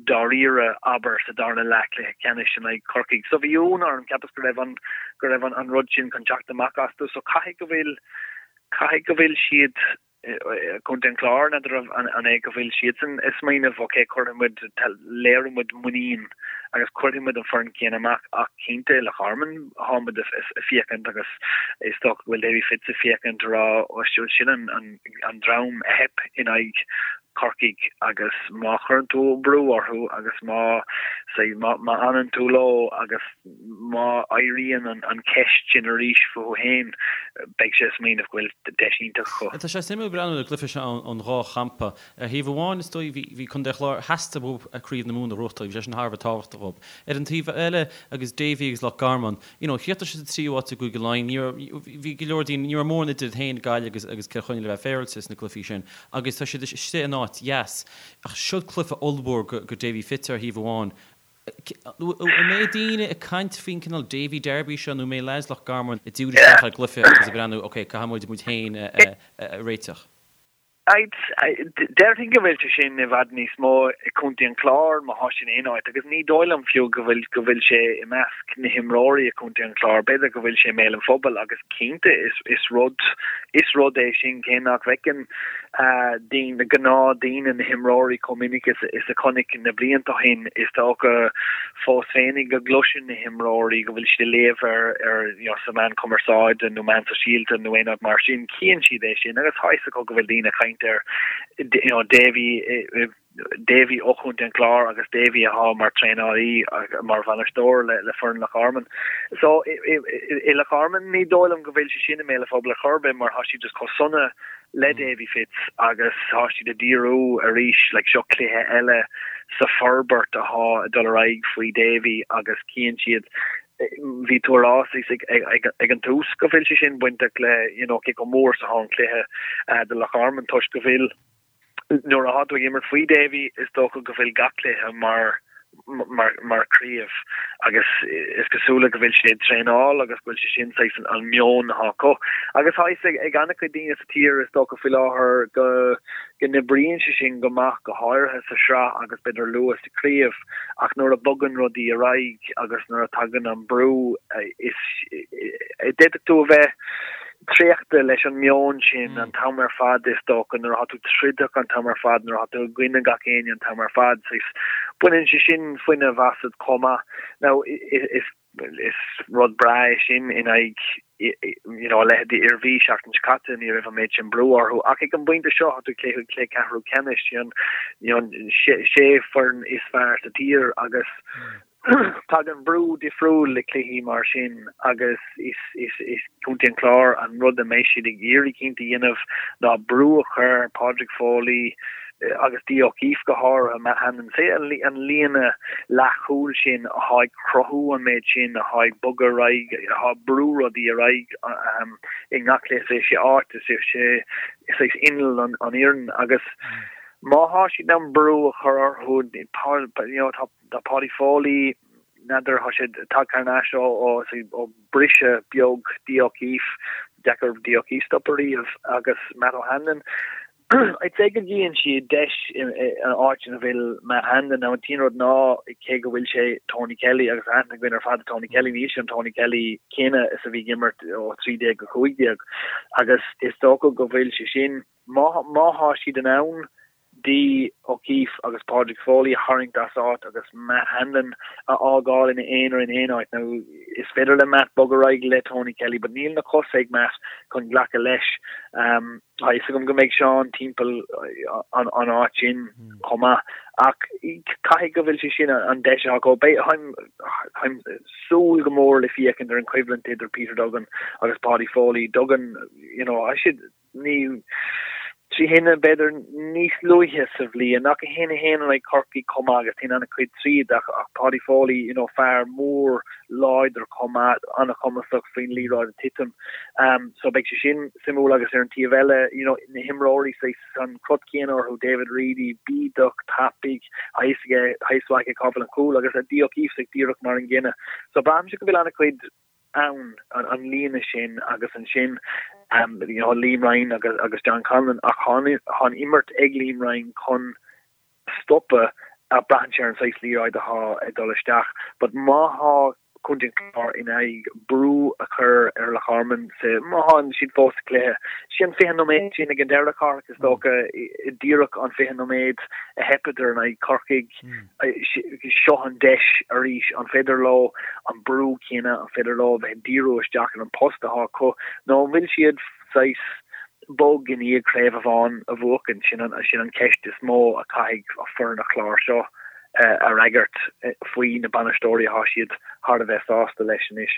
dáiríre, abair, sa darna leath cluiche ceannais in aghaidh Chorcaigh. So bhí ionadh orm, cheapas go raibh an, go raibh an rud sin chun teacht amach astu. So caithfidh go bhfuil, caithfidh go bhfuil siad, Contae an Chláir, n'fheadar an é go bhfuil siadsan ag smaoineamh, ok, cuirfidh muid, léireoidh muid muinín agus cuirfidh muid an foireann céanna amach ach cinnte, Loch Garman, tá muid ag féachaint agus is dócha go bhfuil Davy Fitz ag féachaint a rá, sin an, an, an dream a theip in aghaidh Chorcaigh agus má chuireann tú brú orthu agus má say má fhanann tú leo agus má éiríonn an cheist sin arís fúthu féin beidh sé ag smaoineamh go bhfuil deis iontach acu. Tá sé suimiúil breathnú ar an gcluiche seo ón dhá champa. Ar thaobh amháin is dóigh bhí Contae an Chláir, theastaigh uathu Craobh na Mumhan a ghnóthachtáil, bhí sé sin thar a bheith tábhachtach dóibh. Ar an taobh eile agus Davy agus Loch Garman, you know, chríochnaigh siad sa tríú háit i gCúige Laighean, ní raibh, bhí go leor daoine, ní raibh mórán idir iad féin, Gaillimh agus, agus Cill Chainnigh le bheith féaráilte sna cluichí sin agus tá siad istigh in áit dheas. Ach seo cluiche ollmhór go, go Davy Fitz ar thaobh amháin. An mbeidh daoine ag caint faoin cineál Davy Derby seo nó an mbeidh lads Loch Garman ag díriú isteach ar an gcluiche agus ag breathnú, ok, caithfidh muid muid féin a, a, a réiteach? Déarfainn go bhfuil sé sin i bhfad níos mó i gContae an Chláir má thá sé in aon áit agus ní dóigh liom fiú go bhfuil go bhfuil sé i measc na himreoirí i gContae an Chláir. B'fhéidir go bhfuil sé i mbéal an phobail agus cinnte is is rud is rud é sin cé nach bhfeiceann. daoine, gnáthdaoine, na himreoirí chomh minic is a chonaic na blianta ó shin. Is dócha fós féinig go gcloiseann na himreoirí go bhfuil siad ag léamh ar ar you know sa meán cumarsáide nó meán sóisialta nó aon rud mar sin, chíonn siad é sin agus tá fhios acu go bhfuil daoine ag caint ar you know Davy Davy ó Chontae an Chláir agus Davy atá mar traenálaí mar bhainisteoir le foireann Loch Garman. So i Loch Garman ní dóigh liom go bhfuil sé sin i mbéal an phobail ar chor ar bith mar tá siad just chomh sona le Davy Fitz agus tá siad ag díriú arís like seo cluiche eile sa forbairt atá ag dul ar aghaidh faoi Davy agus cíonn siad bhí tú a rá ag an tús go bhfuil sé sin bainteach le you know cé chomh mór is atá an cluiche do Loch Garman toisc go bhfuil Nuair atá tú ag imirt faoi Davy, is dócha go bhfuil gach cluiche mar mar mar craobh agus is cosúla go bhfuil sé ag traenáil agus go bhfuil sé sin saghas an meon atá acu. Agus tá fhios ag an-chuid daoine sa tír is dócha faoi láthair go go n-oibríonn sé sin go maith go háirithe sa sraith agus b'fhéidir luath sa craobh ach nuair a bogann rudaí ar aghaidh agus nuair a tagann an brú is d'fhéadfadh tú a bheith traochta leis an meon sin an t-am ar fad is dócha, nuair atá tú troideach an t-am ar fad, nuair atá tú i gcoinne gach éinne an t-am ar fad, saghas, baineann sé sin fuinneamh asat chomh maith. Now, is is rud breá é sin in aghaidh you know, a leithéidí Iarmhí seachtain seo caite, ní raibh an méid sin brú orthu, ach ag an bpointe seo tá tú ag cluiche cluiche ceathrú ceannais, you know, sé foireann is fearr sa tír agus Tagann brú difriúil le cluichí mar sin agus is Contae an Chláir an rud a mbeidh siad ag iarraidh cinnte a dhéanamh ná brú a chur ar Padraig Foley agus Dee O'Keeffe go háirithe, Matt Hanlon, sé an líne leathchúil sin atá ag cruthú an méid sin, atá ag bogadh ar aghaidh, atá ag brú rudaí ar aghaidh i ngach cluiche, sé áit, sé saghas inneall an fhoireann agus má thá siad in ann brú a chur orthu, you know, tá Tá Paudie Foley, n'fheadar, tá sé tagtha thar n-ais ó ó briseadh beag Dee O'Keeffe, deacair Dee O'Keeffe stopadh riamh, agus Matt O'Hanlon. I'd say go gcíonn siad deis in áit ina bhfuil Matt Hanlon. Now an t-aon rud ná cé go bhfuil sé Tony Kelly agus aithne againn ar fad ar Tony Kelly, níl sé an Tony Kelly céanna is a bhí ag imirt ó 13 go 15 agus is dócha go bhfuil sé sin, má má thá siad in ann Dee O'Keeffe agus Padraig Foley a tharraingt as áit agus Matt Hanlon a fhágáil ina aonar in aon áit. Now, is féidir le Matt bogadh ar aghaidh le Tony Kelly but níl na cosa ag Matt chun glacadh leis. Tá fhios agam go mbeidh Seán timpeall an áit sin chomh maith ach caithfidh go bhfuil sé sin an deis atá acu. Beidh, táim súil go mór le féachaint ar an choimhlint idir Peter Duggan agus Paudie Foley. Duggan, you know, tá siad ní 3 1 b'fhéidir níos luaithe sa bhliain ach 1 1 in aghaidh Chorcaí chomh maith agus téann an-chuid tríd ach ach Paudie Foley you know fear mór láidir chomh maith an-chumasach faoin liathróid ag titim um, so beidh sé sin suimiúil agus ar an taobh eile you know na himreoirí saghas an crot céanna orthu David Reidy bídeach tapaidh tá fhios aige tá fhios aige cá bhfuil an cúl agus Dee O'Keeffe saghas díreach mar an gcéanna so braithimse go bhfuil an-chuid ann, an líne sin agus ansin you know Liam Ryan agus agus John Conlon ach tá an imirt ag Liam Ryan chun stopadh ach braitheann sé ar an saghas liathróid atá ag dul isteach but má thá Contae an Chláir in aghaidh brú a chur ar Loch Garman sa má thá siad fós sa chluiche sin 20 nóiméad sin ag an deireadh Cárthach is dócha díreach an 20 nóiméad a theipeadar in aghaidh Corcaigh Seo an deis arís, an féidir leo an brú céanna, an féidir leo a bheith ag díriú isteach ar an post atá acu nó an bhfuil siad saghas bog i ndiaidh craobh amháin a bhuachan? Sin an sin an ceist is mó a chaithfidh foireann an Chláir seo a fhreagairt faoi na bainisteoirí atá siad thar a bheith sásta leis anois.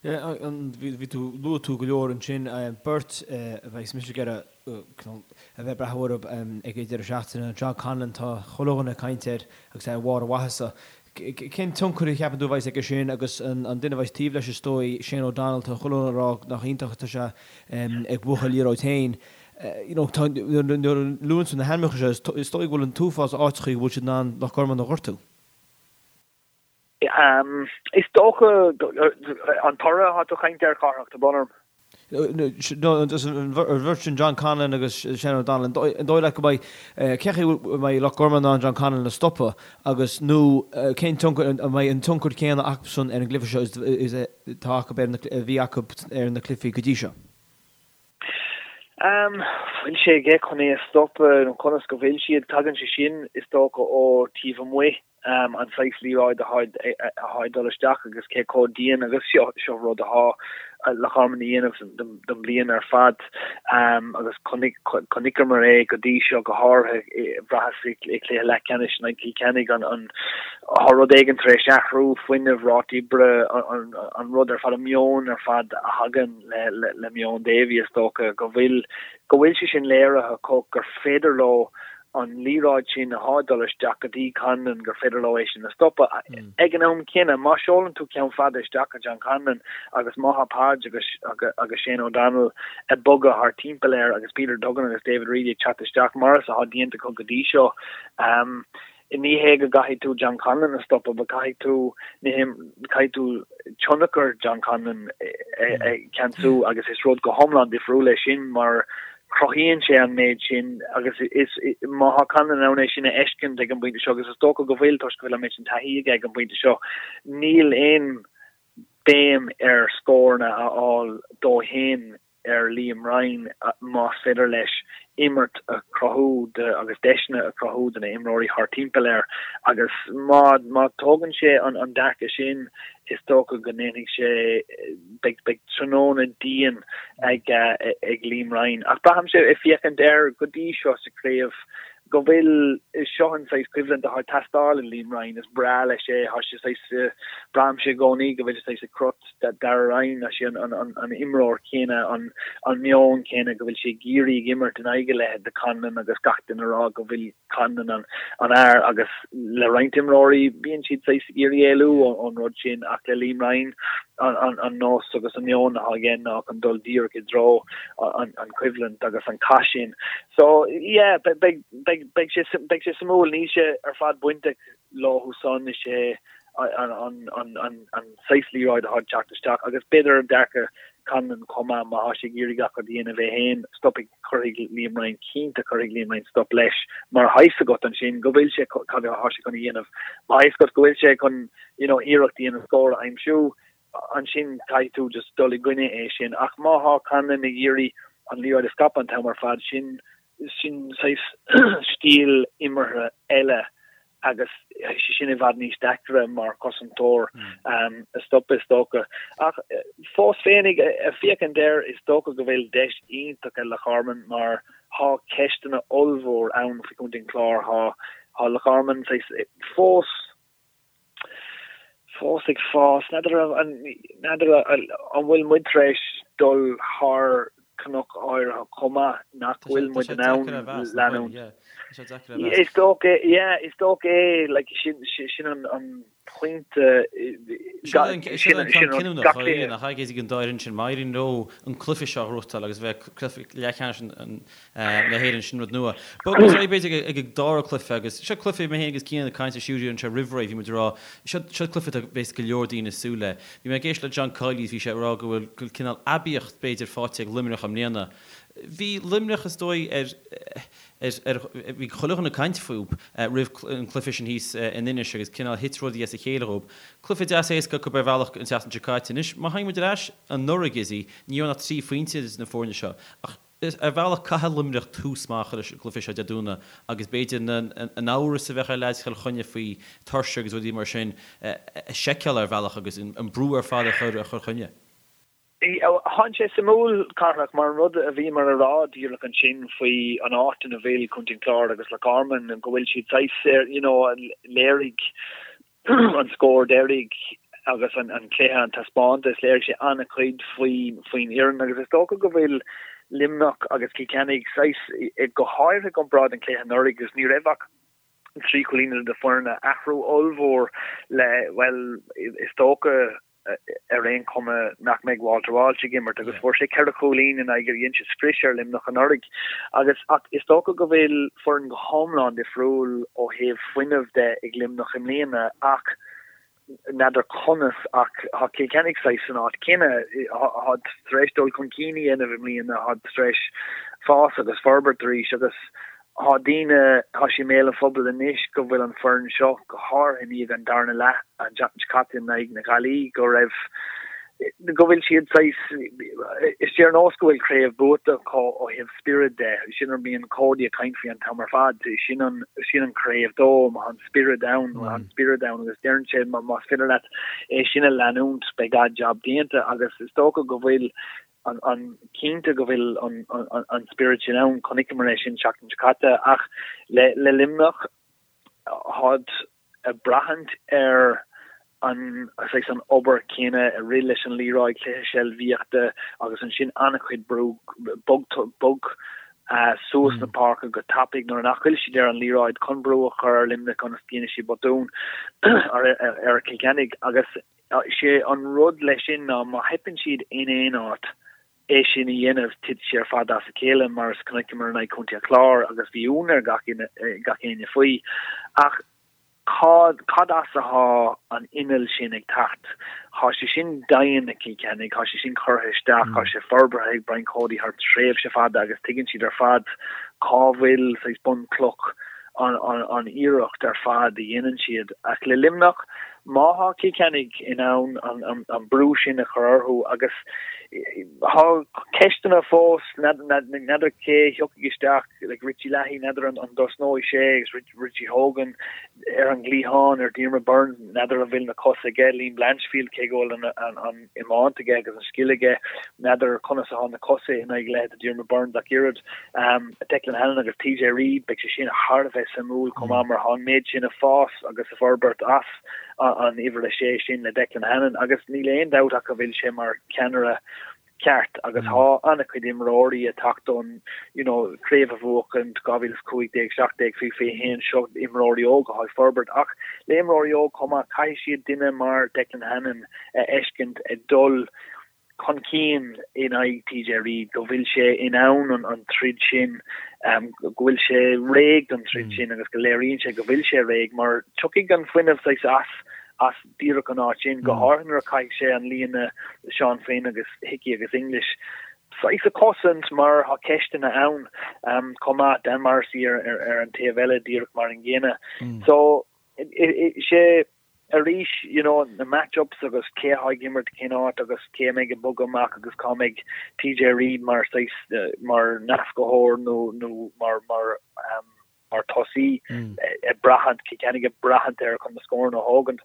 Bhí tú, luaigh tú go leor ansin, beirt a bheas mise ag iarraidh a bheith ag breathnú orthu ag an deireadh seachtaine, John Conlon, tá chuile dhuine ag caint air agus é ar bharr a mhaitheasa. Cén tionchar a cheapann tú a bheas aige sin agus an duine a bheas taobh leis is dóigh, Shane O'Donnell, tá chuile dhuine ag rá nach iontach atá sé ag buachan liathróid féin. You know, tá, nuair a luann tú na hainmneacha seo, is dóigh go bhfuil an t-uafás áiteachaí go bhfuil siad in ann Loch Garman a ghortú. Is dócha an toradh atá tú ag caint air, Cárthach, tá brón orm. No, an bheirt sin, John Conlon agus Shane O'Donnell, an dóigh leat go mbeidh, cén chaoi a mbeidh Loch Garman in ann John Conlon a stopadh agus, nó cén tionchar, an mbeidh an tionchar céanna acusan ar an gcluiche seo is atá acu ar na, a bhí acu ar na cluichí go dtí seo? Bhfuil sé aige chun é a stopadh nó conas go bhfuil siad? Tagann sé sin, is dócha, ó taobh amuigh, an saghas liathróid atá ag dul isteach agus cé chomh dian agus seo, seo rud atá Loch Garman a dhéanamh don bhliain ar fad agus chonaiceamar é go dtí seo go háirithe, bhraitheas i gcluiche leathcheannais in aghaidh Chill Chainnigh an tá rud éigin tar éis athrú, fuinneamh, ráta oibre, an rud ar fad, an meon ar fad a thagann le meon Davy is dócha go bhfuil go bhfuil sé sin léirithe acu gur féidir leo an liathróid sin atá ag dul isteach go dtí Conlon gur féidir leo é sin a stopadh. Ag an am céanna, má seolann tú ceann fada isteach go John Conlon agus má thá Podge agus agus Shane O'Donnell ag bogadh thar timpeall air agus Peter Duggan agus David Reidy ag teacht isteach mar is athá déanta acu go dtí seo, Ní hé go gcaithfidh tú John Conlon a stopadh, but caithfidh tú, caithfidh tú tionchar John Conlon a cheansú agus is rud go hiomlán difriúil é sin mar cruthaíonn sé an méid sin agus is, má thá Conlon in ann é sin a fheiscint ag an bpointe seo, agus is dócha go bhfuil toisc go bhfuil an méid sin taithí aige ag an bpointe seo, níl aon béim ar scóranna a fháil dó fhéin. ar Liam Ryan más féidir leis imirt a chruthú do agus deiseanna a chruthú do na imreoirí thar timpeall air agus má má tógann sé an an dearcadh sin is dócha go ndéanfaidh sé beidh beidh tráthnóna dian ag ag Liam Ryan ach braithimse ag féachaint air go dtí seo sa chraobh go bhfuil seo an saghas coimhlint atá ag teastáil i Liam Ryan, is breá leis é, tá sé saghas, braithimse i gcónaí go bhfuil sé saghas i gcrot Darragh Ryan, tá sé an imreoir céanna, an meon céanna, go bhfuil sé ag iarraidh ag imirt in aghaidh a leithéid de Conlon agus gach duine ag rá go bhfuil Conlon an fhear agus le roinnt imreoirí bíonn siad saghas ag iarraidh éalú ón rud sin ach le Liam Ryan an nós agus an meon atá aige ná chun dul díreach i dtreo an choimhlint agus an cath sin. So, yeah, beidh, beidh, beidh sé, beidh sé suimiúil, níl sé ar fad bainteach leo san, is é an, an, an, an, an saghas liathróid atá ag teacht isteach agus b'fhéidir dearcadh Conlon chomh maith má thá sé ag iarraidh gach rud a dhéanamh é féin, stopfaidh, cuirfidh Liam Ryan, cinnte cuirfidh Liam Ryan stop leis mar thá fhios agat ansin go bhfuil sé, cad athá sé chun a dhéanamh, má thá fhios agat go bhfuil sé chun, you know, iarracht a dhéanamh scór a aimsiú, ansin caithfidh tú just dul i gcoinne é sin. Ach má thá Conlon ag iarraidh an liathróid a scaipeadh an t-am ar fad, sin, sin saghas stíl imeartha eile agus tá sé sin i bhfad níos deacra mar chosantóir a stopadh is dócha. Ach fós féinig, ag féachaint air, is dócha go bhfuil deis iontach ag Loch Garman mar thá ceisteanna ollmhór ann faoi Chontae an Chláir. Thá, thá Loch Garman saghas fós, fós ag fás. N'fheadar an n'fheadar an bhfuil muid tar éis dul thar cnoc áirithe chomh maith nach bhfuil muid in ann leanúint. Is dócha, yeah, is dócha é, like, sin sin an an pointe Sin an ceann cinniúnach nach ea ag an dá fhoireann sin, má éiríonn leo an cluiche seo a ghnóthachtáil agus bheith cluiche leathcheannais na hÉireann, sin rud nua. Bogfaidh muid ar aghaidh b'fhéidir ag an dara cluiche agus seo cluiche mé féin agus Cian ag caint ar stiúideo anseo roimh ré, bhí muid ag rá, seo seo cluiche atá bheas go leor daoine ag súil le. Bhí mé ag éisteacht le John Kiely is bhí sé ag rá go bhfuil go bhfuil cineál aibíocht b'fhéidir faighte ag Luimneach i mbliana. Bhí Luimneach is dóigh ar ar ar bhí chuile dhuine ag caint fúb roimh an cluiche sin thíos in Inis agus cineál thit rudaí as a chéile dhób. Cluiche deas éasca acu ar bhealach an tseachtain seo caite. Anois má thagann muid ar ais anuraidh Gizzy, ní raibh ach 3 phointe idir na foirne seo ach Ar bhealach, caithfidh Luimneach tús maith a chur leis an gcluiche seo Dé Domhnaigh agus b'fhéidir an amhras a bheadh ar leaids Chill Chainnigh faoi tuirse agus rudaí mar sin a sheiceáil ar bhealach agus an brú ar fad a chur ar Chill Chainnigh. Tá sé suimiúil, Cárthach, mar an rud a bhíomar a rá díreach ansin faoi an áit ina bhfuil Contae an Chláir agus Loch Garman, go bhfuil siad saghas, you know, léirigh an scór deiridh agus an cluiche, an taispeántas, léirigh sé an-chuid faoin fhoireann agus is dócha go bhfuil Luimneach agus Cill Chainnigh saghas, go háirithe i gcomparáid an cluiche anuraidh agus ní raibh ach 3 chúilín idir na foirne, athrú ollmhór le, bhuel, is dócha, ar aon chuma nach mbeidh Walter Walsh ag imirt agus fuair sé 4 chúilín in aghaidh dhein sé scrios ar Luimneach anuraidh agus ach is dócha go bhfuil foireann go hiomlán difriúil ó thaobh fuinnimh de ag Luimneach i mbliana ach n'fheadar conas ach tá Cill Chainnigh saghas san áit chéanna tá tar éis dul chun cinn a dhéanamh i mbliana tá tar éis fás agus forbairt arís agus Tá daoine, tá sé i mbéal an phobail anois go bhfuil an foireann seo, go háirithe i ndiaidh an darna leath an tseachtain seo caite in aghaidh na Gaillimhe, go raibh. Go bhfuil siad saghas, is ar nós go bhfuil craobh buaite acu ó thaobh spiorad de, sin rud bíonn Cody ag caint faoi an t-am ar fad, sin an, sin an craobh dó, má tá an spiorad ann, má tá an spiorad ann agus deireann sé más féidir leat é sin a leanúint beidh an-jab déanta agus is dócha go bhfuil an, an, cinnte go bhfuil an, an, an spiorad sin ann, chonaiceamar é sin seachtain seo caite ach le, le Luimneach táid ag braithint ar an saghas an obair céanna ag rith leis an liathróid, cluiche seilbhíochta agus ansin an-chuid brú bog bog suas na páirce go tapaidh nuair nach bhfuil siad ar an liathróid chun brú a chur ar Luimneach ionas go ndéanfaidh siad botún ar ar Cill Chainnigh agus sé an rud leis sin ná má theipeann siad in aon áit é sin a dhéanamh, titfidh sé ar fad as a chéile, mar is chonaiceamar in aghaidh Chontae an Chláir agus bhí ionadh ar gach gach éinne faoi. Ach cad cad as athá an inneall sin ag teacht? Thá sé sin dian ag Cill Chainnigh, thá sé sin curtha isteach, thá sé forbartha ag Brian Cody thar tréimhse fada agus tuigeann siad ar fad cá bhfuil saghas bunchloch an an iarracht ar fad a dhéanann siad. Ach le Luimneach, má thá Cill Chainnigh in ann an an brú sin a chur orthu agus thá ceisteanna fós, n'fheadar cé a thiocfaidh isteach, like Richie Leahy, n'fheadar an an dtosnóidh sé agus Richie Hogan ar an gcliathán, ar Diarmaid Byrnes, n'fheadar an bhfuil na cosa aige, Liam Blanchfield, cé go bhfuil an an an iomáint aige agus an scil aige, n'fheadar conas athá na cosa in aghaidh leithéid de Diarmaid Byrnes ach oiread. Declan Hannon agus TJ Reid, beidh sé sin thar a bheith suimiúil chomh maith mar thá an méid sin ag fás agus ag forbairt as an uimhir a sé sin le Declan Hannon agus níl aon dabht ach go bhfuil sé mar cheannaire ceart agus thá an-chuid imreoirí ag teacht ón you know craobh a bhuachaint 2015, 17, faoi 21 seo imreoirí óga athá ag forbairt ach le imreoirí óg chomh maith caithfidh siad duine mar Declan Hannon a fheiscint ag dul chun cinn in aghaidh TJ Reid, go bhfuil sé in ann an troid sin, go bhfuil sé réidh don troid sin agus go léiríonn sé go bhfuil sé réidh mar tiocfaidh an fuinneamh saghas as as díreach an áit sin, go háirithe nuair a chaithfidh sé an líne Seán Flynn agus Hickey agus English saghas a chosaint mar tá ceisteanna ann chomh maith, Dan Morrissey ar ar an taobh eile díreach mar an gcéanna. So sé arís, you know, na match-ups agus cé atá ag imirt cén áit agus cé a mbeidh ag bogadh amach agus cá mbeidh TJ Reid mar saghas, mar nascaitheoir nó, nó mar, mar, um, mar tosaí ag braithint, Cill Chainnigh ag braithint air chun na scóranna a thógaint.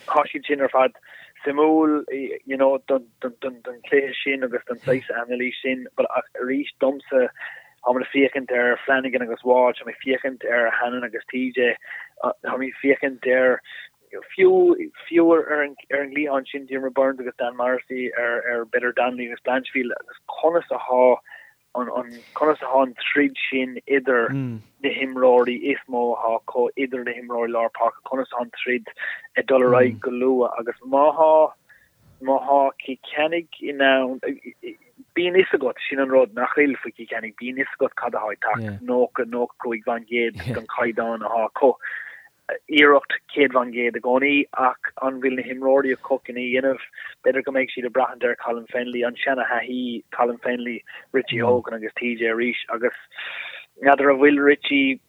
Tá siad sin ar fad suimiúil, you know, don, don, don, don chluiche sin agus don saghas anailís sin, but ach arís domsa, Táimid ag féachaint ar Flanagan agus Walsh, táimid ag féachaint ar Hannon agus TJ, táimid ag féachaint ar fiú fiú ar an ar an gcliathán sin Diarmaid Byrnes agus Dan Morrissey ar ar b'fhéidir Donnelly agus Blanchfield agus conas athá an an conas athá an troid sin idir na himreoirí is mó athá acu idir na himreoirí lár páirce conas athá an troid ag dul ar aghaidh go luath agus má thá Má thá Cill Chainnigh in ann, bíonn fhios agat, sin an rud nach bhfuil faoi Chill Chainnigh, bíonn fhios agat cad athá ag teacht, 90, 95% den chaighdeán athá acu. Iarracht 100% i gcónaí ach an bhfuil na himreoirí acu chun é a dhéanamh? B'fhéidir go mbeidh siad ag braithint ar Colin Fennelly, an seana-thaithí, Colin Fennelly, Richie Hogan agus TJ arís agus n'fheadar an bhfuil Richie,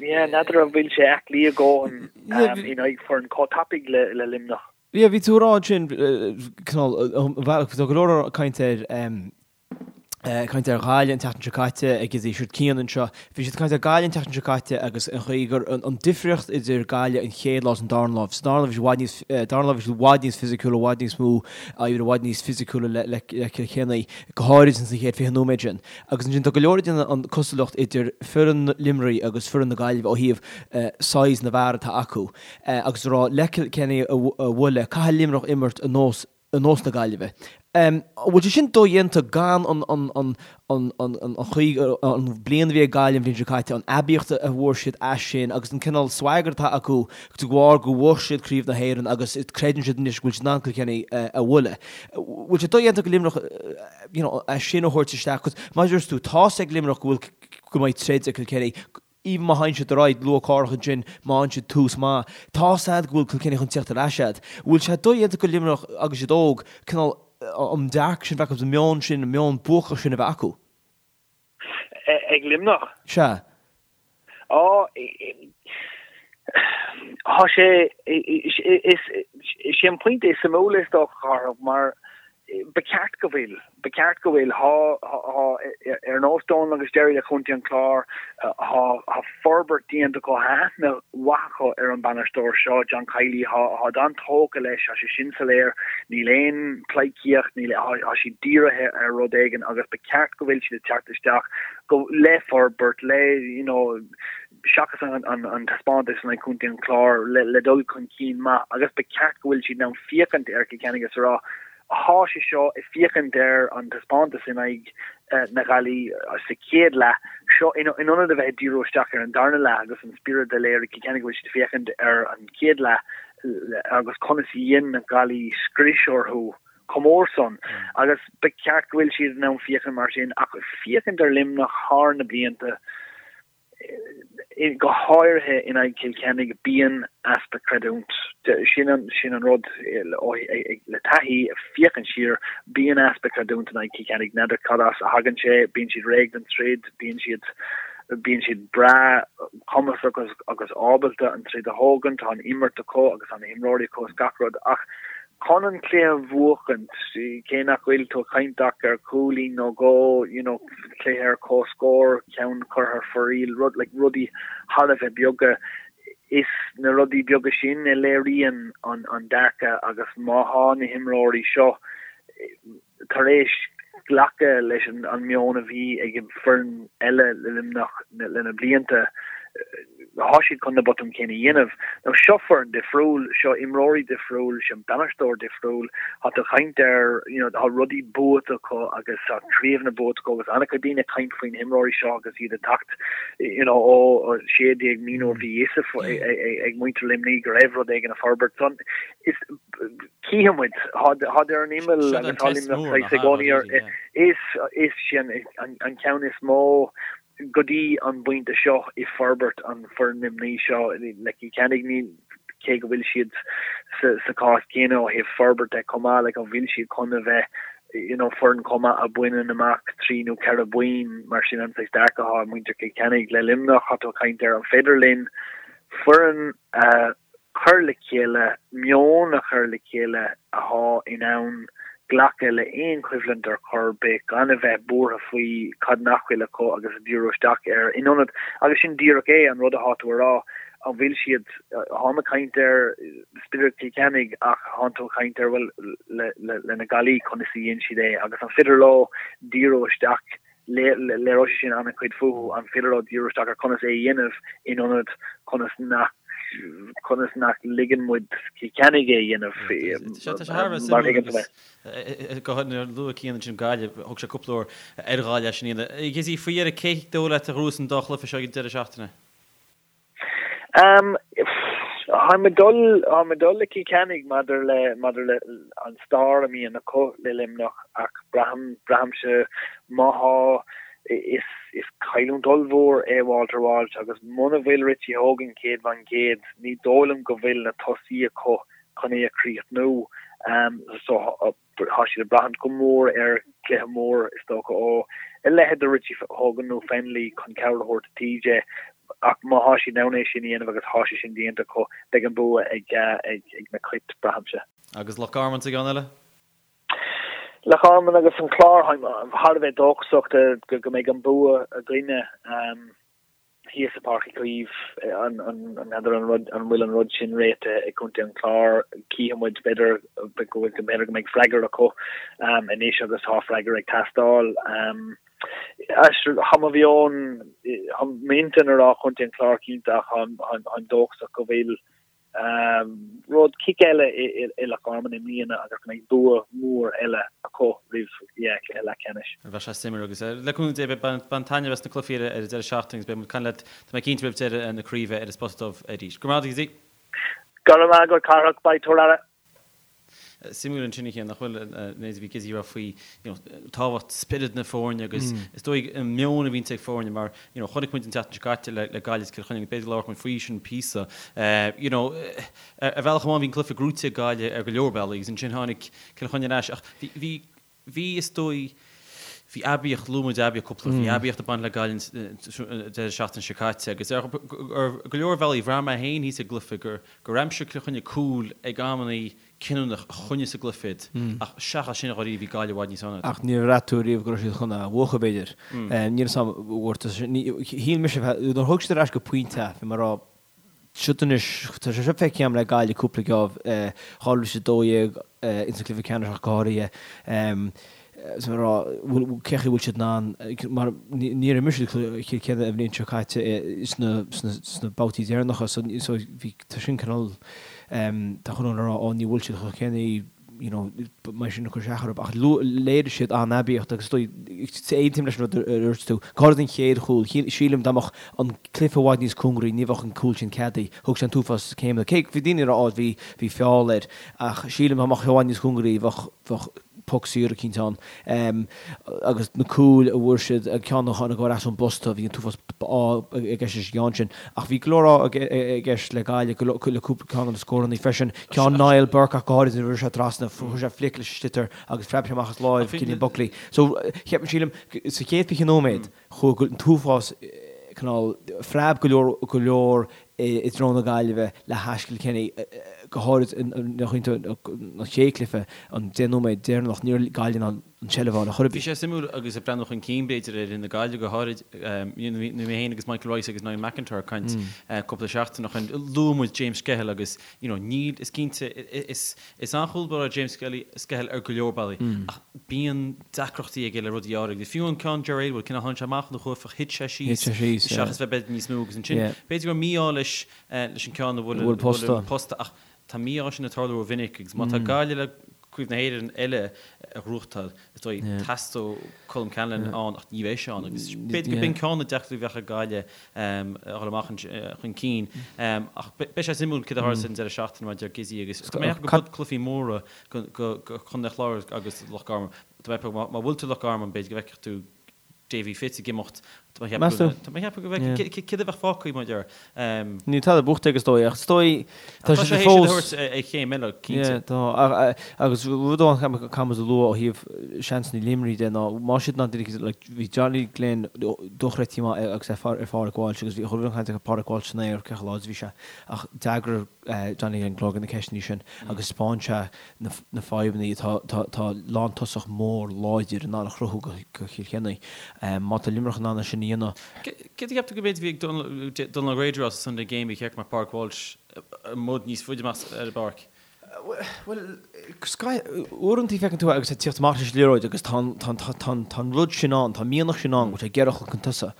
Yeah, n'fheadar an bhfuil sé aclaí a dhóthain in aghaidh foireann chomh tapaidh le Luimneach. Yeah, bhí tú ag rá ansin, cineál, bhealach, tá go leor caint ar, caint ar Ghaillimh an tseachtain seo caite ag iad siúd Cian anseo. Bhí siad ag caint ar Gaillimh an tseachtain seo caite agus an chaoi gur an difríocht idir Gaillimh an chéad lá is an darna lá. Sa darna lá bhí siad i bhfad níos, darna lá bhí siad i bhfad níos fisiciúla, i bhfad níos mó, i bhfad níos fisiciúla le, le, le Cill Chainnigh, go háirid ins an chéad 20 nóiméad sin. Agus ansin tá go leor ag déanamh an cosúlacht idir foireann Luimnigh agus foireann na Gaillimhe ó thaobh size na bhfear atá acu. Agus a rá le Cill Chainnigh a bhualadh, caithfidh Luimneach imirt ar nós ar nós na Gaillimhe. An bhfuil sé sin dodhéanta gan an an an an an an chaoi an bliain a bhí ag Gaillimh an bhliain seo caite, an aibíocht a bhfuair siad as sin agus an cineál swagger atá acu de bharr go bhfuair siad Craobh na hÉireann agus creideann siad anois go bhfuil siad in ann Cill Chainnigh a bhualadh. Bhfuil sé dodhéanta go Luimneach you know, é sin a thabhairt isteach, 'cause mar a dúirt tú, tá's ag Luimneach go bhfuil, go mbeidh troid ag Cill Chainnigh, even má théann siad ar aghaidh luath cárthach ansin, má fhaigheann siad tús maith, tá's a'd go bhfuil Cill Chainnigh chun tíocht ar ais a'd. Bhfuil sé dodhéanta go Luimneach agus iad óg, cineál an dearcadh sin a bheith acu, an meon sin, an meon buacach sin a bheith acu? Ag Luimneach? Sea. Á, tá sé, is. Is é an pointe is suimiúla is dócha, Cárthach, mar ba cheart go bhfuil, ba cheart go bhfuil, thá, thá, ar nós Dónal agus Gerry le Contae an Chláir, thá, thá forbairt déanta acu, thá aithne mhaith acu ar an bainisteoir seo, John Kiely, thá, tháid an-tógtha leis, thá sé sin soiléir, níl aon pleidhcíocht, níl, thá, thá siad dírithe ar rud éigin agus ba cheart go bhfuil siad ag teacht isteach go, le forbairt, le, you know, seachas an taispeántas in aghaidh Chontae an Chláir, le dul chun cinn maith agus ba cheart go bhfuil siad in ann féachaint ar Chill Chainnigh agus a rá, thá sé seo ag féachaint ar an taispeántas in aghaidh na Gaillimhe sa chéad leath seo in ionad a bheith ag díriú isteach ar an darna leath agus an spiorad a léirigh Cill Chainnigh go bhfuil siad ag féachaint ar an chéad leath agus conas a dhein na Gaillimhigh scrios orthu chomh mór san agus ba cheart go bhfuil siad in ann féachaint mar sin ach féachaint ar Luimneach thar na blianta go háirithe in aghaidh Chill Chainnigh, bíonn easpa creidiúint. Sin an sin an rud le taithí, féachaint siar, bíonn easpa creidiúint in aghaidh Chill Chainnigh. N'fheadar cad as a thagann sé, bíonn siad réidh don troid, bíonn siad bíonn siad breá cumasach agus agus ábalta an troid a thógaint, tá an imirt acu agus tá na himreoirí acu is gach rud ach Chun an cluiche a bhuachaint, cé nach bhfuil tú ag caint ach ar chúilín nó dhó, you know, cluiche ar comhscór, ceann curtha ar fóraoil, rud, like, rudaí thar a bheith beaga, is na rudaí beaga sin a léiríonn an, an dearcadh agus má thá na himreoirí seo tar éis glacadh leis an meon a bhí ag an foireann eile le Luimneach le na blianta, thá siad chun na botúin céanna a dhéanamh. Now seo foireann difriúil, seo imreoirí difriúil, seo bainisteoir difriúil, thá tú ag caint ar, you know, thá rudaí buaite acu agus thá craobhanna buaite acu agus an-chuid daoine ag caint faoi na himreoirí seo agus iad ag teacht, you know, ó 16 mí nuair bhí fhios ag muintir Luimnigh go raibh rud éigin ag forbairt. So, is Cífidh muid. Tháid ar an imeall agus tá Luimneach saghas i gcónaí ar is is sin an ceann is mó go dtí an bpointe seo i forbairt an foireann Luimnigh seo le Cill Chainnigh ní cé go bhfuil siad sa sa cás céanna ó thaobh forbairt de chomh maith like an bhfuil siad chun a bheith you know foireann chomh maith a bhaineann amach trí nó ceithre boinn mar sin an saghas dearcadh atá ag muintir Chill Chainnigh le Luimneach tá tú ag caint ar an féidir linn foireann a chur le chéile, meon a chur le chéile athá in ann glacadh le aon choimhlint ar chor ar bith, gan a bheith buartha faoi cad nach bhfuil acu agus a díriú isteach air in ionad, agus sin díreach é, an rud athá tú a rá, an bhfuil siad, tháim ag caint ar spiorad Chill Chainnigh ach thánn tú ag caint ar, bhuel, le, le, le na Gaillimhigh, conas a dhein siad é agus an féidir leo díriú isteach Léireoidh sé sin an-chuid fúthu, an féidir leo díriú isteach ar conas é a dhéanamh in ionad conas nach conas nach ligeann muid Cill Chainnigh é a dhéanamh. Tá sé thar a bheith suimiúil agus go háirithe nuair a luaigh Cian ansin Gaillimh, thug sé cúpla uair ar Ghaillimh sin iad. Gizzy, faoi dheireadh, cé dóigh leat a ghnóthós an dá chluiche seo ag an deireadh seachtaine? Táim ag dul, táim ag dul le Cill Chainnigh maidir le, maidir le an stair a mbíonn acu le Luimneach ach braithim, braithimse má thá, is, is cailliúint ollmhór é Walter Walsh agus muna bhfuil Richie Hogan 100%, ní dóigh liom go bhfuil na tosaí acu chun é a chríochnú. So Tá siad ag braithint go mór ar chluiche mór, is dócha, ó a leithéid de Richie Hogan nó Fennelly chun cabhair a thabhairt do TJ ach má thá siad in ann é sin a dhéanamh agus thá sé sin déanta acu, beidh an bua ag na Cait, braithimse. Agus Loch Garman sa gceann eile? Loch Garman agus an Clár, táim thar a bheith dóchasach go mbeidh an bua againne. thíos i Páirc Uí Chaoimh, n'fheadar an rud, an bhfuil an rud sin réitithe ag Contae an Chláir, cífidh muid, b'fhéidir go bhfuil, b'fhéidir go mbeidh freagra acu anois agus tá freagra ag teastáil. Tá mo mheon, tá m'intinn a rá Contae an Chláir cinnte ach táim dóchasach go bhfuil Rud cic eile i Loch Garman i mbliana agus go mbeidh bua mór eile acu roimh chluiche leathcheannais. Bheadh sé suimiúil agus le cúnamh Dé bain taitneamh as na cluichí ar an deireadh seachtaine agus beidh muid ag caint leat, tá mé cinnte roimh deireadh na craoibhe ar an Spota Dubh arís. Go raibh maith agat, Gizzy. Go raibh maith agat, Cárthach. Bye, tabhair aire. Suimiúil ansin a Chian, nach bhfuil, an méid a bhí Gizzy a rá faoi you know tábhacht spiorad na foirne agus is dóigh an meon a bhíonns ag foirne mar you know chonaic muid an tseachtain seo caite le le Gaillimh is Cill Chainnigh b'fhéidir go labharfadh muid faoi sin píosa you know ar bhealach amháin bhí an cluiche gnóite ag Gaillimh ar go leor bealaí agus ansin tháinig Cill Chainnigh ar ais ach bhí bhí bhí is dóigh. Bhí aibíocht, luaigh muid aibíocht cúpla, bhí aibíocht ag baint le Gaillimh an deireadh seachtaine seo caite agus ar go leor bealaí bhraith mé féin thíos ag an gcluiche gur gur aimsigh Cill Chainnigh cúl ag amannaí cinniúnach a choinnigh sa gcluiche iad ach seachas sin dháiríre bhí Gaillimh i bhfad níos fearr. Ach níor bhraith tú riamh go raibh siad chun é a bhuachan b'fhéidir. Níl 'fhios a'm, shíl mise, nuair a thug siad ar ais go pointe é, bhí mé ag rá, Siod anois, tá sé seo feicthe agam le Gaillimh cúpla geábh, 2012 ins an cluiche ceannais ach go háirithe, is mé ag rá, bhfuil, cé chaoi bhfuil siad in ann, mar níor imir siad Cill Chainnigh an bhliain seo caite sna, sna, sna babhtaí deireanacha so, so bhí, tá sin cineál, tá chuile dhuine ag rá, ó ní bhfuil siad chomh céanna, you know, mar sin ag cur isteach orthu, ach léirigh siad an-aibíocht agus is dóigh, aontaím leis an rud a dúirt tú, go háirid an chéad chúl, sílim dá mbeadh an cluiche i bhfad níos cóngaraí ní bheadh an cúl sin ceadaithe, thug sé an t-uafás céimeanna, cé bhí daoine ag rá á bhí, bhí feall air, ach sílim dá mbeadh sé i bhfad níos cóngaraí bheadh, bheadh poc saor eicínt ann. Agus na cúil a bhfuair siad, an ceann a tháinig ar ais ón bposta, bhí an t-uafás ádh i gceist leis an gceann sin. Ach bhí go leor ádh i gceist le Gaillimh, le cúpla ceann de na scóranna freisin. Ceann Niall Burke ach go háirid nuair a rinne sé trasna, chuir sé flic leis an sliotar agus phreab sé amach as láimh Cillian Buckley. So, cheap, sílim, sa chéad 20 nóiméad, chuaigh an t-uafás cineál, phreab go leor, go leor i dtreo na Gaillimhe le hais Chill Chainnigh, go háirid an chéad chluiche, an 10 nóiméad deireanach, ní raibh Gaillimh in ann an tseilbh a fháil ar chor ar bith. Bhí sé suimiúil agus ag breathnú chun cinn b'fhéidir ar fhoireann na Gaillimhe go háirid, bhí mé féin agus Michael Rice agus Niall McIntyre ag caint cúpla seachtain ó shin, luaigh muid James Skehill agus you know níl, is cinnte, is is an-chúl báire James Skehill ar go leor bealaí ach bíonn deacrachtaí aige le rudaí áirithe. Fiú an ceann Ger Aylward, cineál tháinig sé amach ina chuaifeach, thit sé síos seachas bheith b'fhéidir níos mó agus ansin b'fhéidir go raibh mí-ádh leis leis an ceann a bhuail an posta ach tá mí-ádh sin ag tarlú rómhinic agus má tá Gaillimh le Craobh na hÉireann eile a ghnóthachtáil, is dóigh, teastóidh Colm Callanan ann ach ní bheidh sé ann agus b'fhéidir go b'in ceann de na deacrachtaí a bheadh ag Gaillimh a dhul amach chun cinn. Ach beidh sé suimiúil céard a tharlós an deireadh seachtaine mar a deir Gizzy agus tá mé ag ceapadh go cluichí móra go Contae an Chláir agus Loch Garman. Tá mé ag ceapadh má bhfuil tú Loch Garman b'fhéidir go bhfeicfeadh tú Davy Fitz ag imeacht. Tá mé ag ceapadh tá mé ag ceapadh go bhfeicfidh céard a bheadh fágtha mar deir. Níl tada buachta aige is dóigh ach is dóigh tá sé théis iad a thabhairt ar chéim eile cinnte. Tá agus rud amháin caithfidh muid a lua ó thaobh seansanna Luimnigh de ná má siad ná like bhí Johnny Glynn dochreidte maith agus é ar Phádraig Walsh agus bhí chuile chaint ar Pádraig Walsh san aer cé chomh láidir a bhí sé ach d'fhreagair Johnny Glynn go leor de na ceisteanna sin agus thaispeáin sé na fadhbanna atá tá lántosach mór láidir in ann a chruthú do Chill Chainnigh. Má tá Luimneach in ann é sin a dhéanamh. Céard a cheap tú go b'fhéidir bhí ag Donal O'Grady as Sunday Game a cheart go mbeadh Pádraig Walsh i mbod níos faide amach ar an bpáirc? Bhuel, uaireanta feiceann tú é agus é ag tíocht amach leis an liathróid agus tá an rud sin ann, tá an mianach sin ann go bhfuil sé ag iarraidh a dhul chun tosaigh.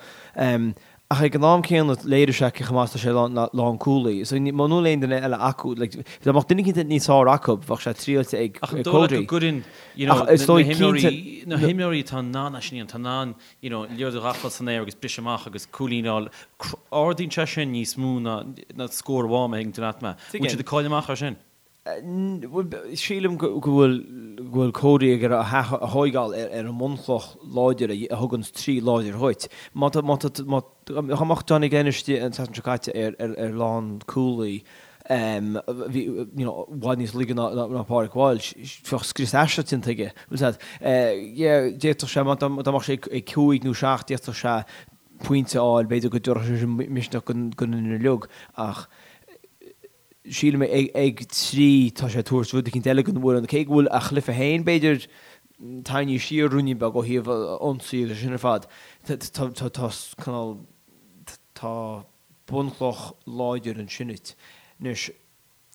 Ach ag an am céanna, léirigh sé cé chomh maith is atá sé lánchúlaí. So muna bhfuil aon duine eile acu, like, dá mbeadh duine eicínt níos fearr acu, bheadh sé triailte ag Ach an dóigh leat go gcuireann, you know, na himreoirí, na himreoirí atá in ann é sin a dhéanamh, atá in ann, you know, liathróid a ghabháil san aer agus briseadh amach agus cúilín a fháil, ardaíonn sé sin níos mó ná ná scór amháin, má thuigeann tú leat mé. Bhfuil siad ag cailleadh amach ar sin? Sílim go bhfuil go bhfuil Cody ag iarraidh a thóigeáil ar an mbunchloch láidir a thugann trí láidir dhuit. Má tá má tá má dá mbeadh Johnny Glenn istigh an tseachtain seo caite ar ar ar lánchúlaí bhí you know i bhfad níos laige ná ná Pádraig Walsh, bheadh scrios aisteach déanta aige. Bhfuil a fhios agat? Yeah, d'fhéadfadh sé má dá mbeadh sé ag cúig nó seacht d'fhéadfadh sé pointe a fháil, b'fhéidir go dtabharfadh sé sin misneach don fhoireann uilig ach sílim ag 3 tá sé ag tabhairt rud eicínt eile don bhfoireann, cé go bhfuil a chluiche féin b'fhéidir tarraingthe siar ruainnín beag ó thaobh ionsaí agus sin ar fad, tá cineál, tá bunchloch láidir ansin duit. Anois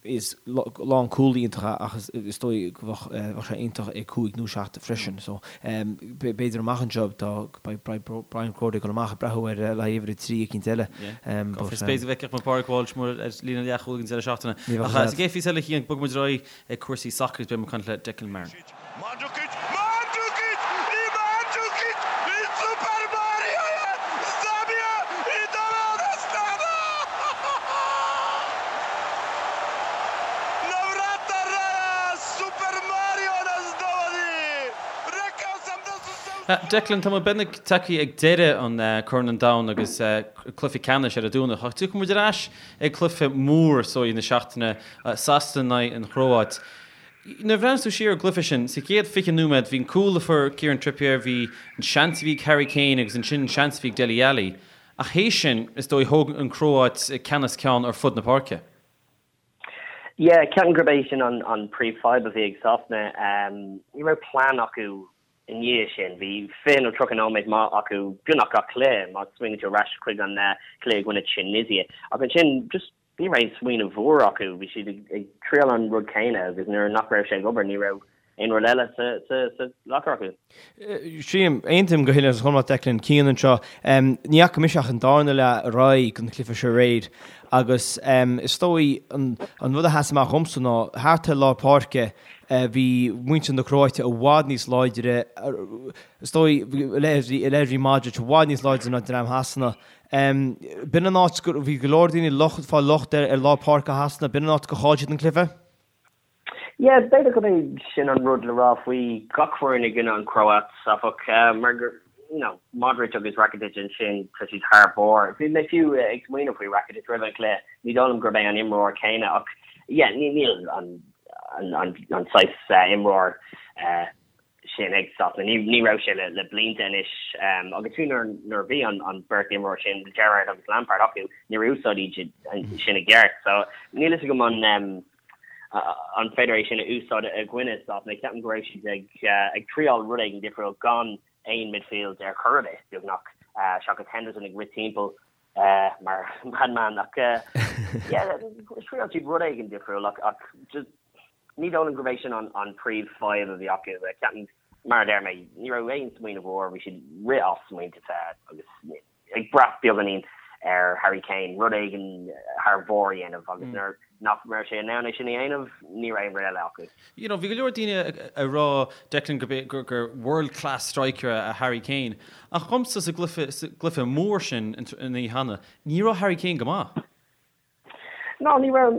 is lánchúlaí iontach é ach is dóigh go bheadh sé iontach ag 5 nó 7 freisin so b'fhéidir amach anseo tá beidh Brian Cody ag dul amach ag breathnú ar le haghaidh uimhir a 3 eicínt eile. But is b'fhéidir go bhfeicfeadh muid Pádraig Walsh mór ar líne leathchúil ag an deireadh seachtaine. Ach sa gcéad phíosa eile Cian, bogfaidh muid ar aghaidh ag cúrsaí sacair agus beidh muid ag caint le Declan Marron. Mandzukic, Mandzukic i Mandzukic i Super Mario je zabija i doveo na stranu! Na vrata raja Super Mario nas dovodi! Rekao sam da su se... Declan, tá muid beagnach tagtha ag deireadh an Corn an Domhain agus cluiche ceannais ar an Domhnach. Ach tiocfaidh muid ar ais ag cluiche mór is dóigh na seachtaine, Sasana in aghaidh an Chróit. Nuair a bhreathnaíos tú siar ar an gcluiche sin, sa chéad 20 nóiméad bhí an cúl a fuair Kieran Trippier, bhí an seans a bhí ag Harry Kane agus ansin an seans a bhí ag Dele Alli. Ach théis sin, is dóigh, thóg an Chróit ceannas ceann ar fud na páirce. Yeah, ceapaim gurb é sin an príomhfhadhb a bhí ag Sasana. Ní raibh plean acu i ndiaidh sin. Bhí 20 nó 30 nóiméad maith acu beagnach gach cluiche, má smaoiníonn tú ar ais chuig an cluiche i gcoinne Tunisia. Ach ansin, just ní raibh aon smaoineamh úr acu. Bhí siad ag triail an rud céanna agus nuair nach raibh sé ag obair, ní raibh aon rud eile sa locker acu. Sílim, aontaím go huile is go hiomlán Declan, Cian anseo. Ní fhaca mise ach an darna leath ar aghaidh den chluiche seo aréir agus is dóigh an rud a sheas amach dhomsa ná thart ar lár páirce bhí muintir na Cróite i bhfad níos láidre, is dóigh, leithéidí Modric i bhfad níos láidre ná dream Shasana. B'in an áit go, bhí go leor daoine ag fáil locht ar lár páirce Shasana, b'in an áit gur chaill siad an cluiche. Yeah, b'fhéidir gurb é sin an rud le rá faoi gach foireann i gcoinne an Chróit, áfach, mar gur, you know, Modric agus Rakitic ansin, tá siad thar barr. Bhí mé fiú ag smaoineamh faoi Rakitic roimh an chluiche, ní dóigh liom gurb é an imreoir céanna ach, yeah, níl an, an, an saghas imreoir sin ag Sasana. Ní raibh sé le blianta anois agus fiú nuair a bhí an bheirt imreoir sin, Gerrard agus Lampard, acu, níor úsáid iad sin i gceart. So níl fhios agam an an féidir é sin a úsáid i gcoinne Sasana. Ceapaim go raibh siad ag triáil rud éigin difriúil gan aon midfield ar chor ar bith, beagnach, seachas Henderson ag rith timpeall mar madman. Ach yeah, thriáil siad rud éigin difriúil ach just Ní dóigh liom gurb é sin an príomhfhadhb a bhí acu. Ceapaim, mar a deir mé, ní raibh aon smaoineamh úr, bhí siad ag rith as smaointe agus ag brath beagáinín ar Harry Kane rud éigin thar barr a dhéanamh agus nuair nach raibh sé in ann é sin a dhéanamh, ní raibh aon rud eile acu. You know, bhí go leor daoine ag rá, Declan, gurb é, gur, gur world class striker é Harry Kane. Ach dhomsa sa gcluiche, sa gcluiche mór sin an oíche cheana, ní raibh Harry Kane go maith. Ná, ní raibh,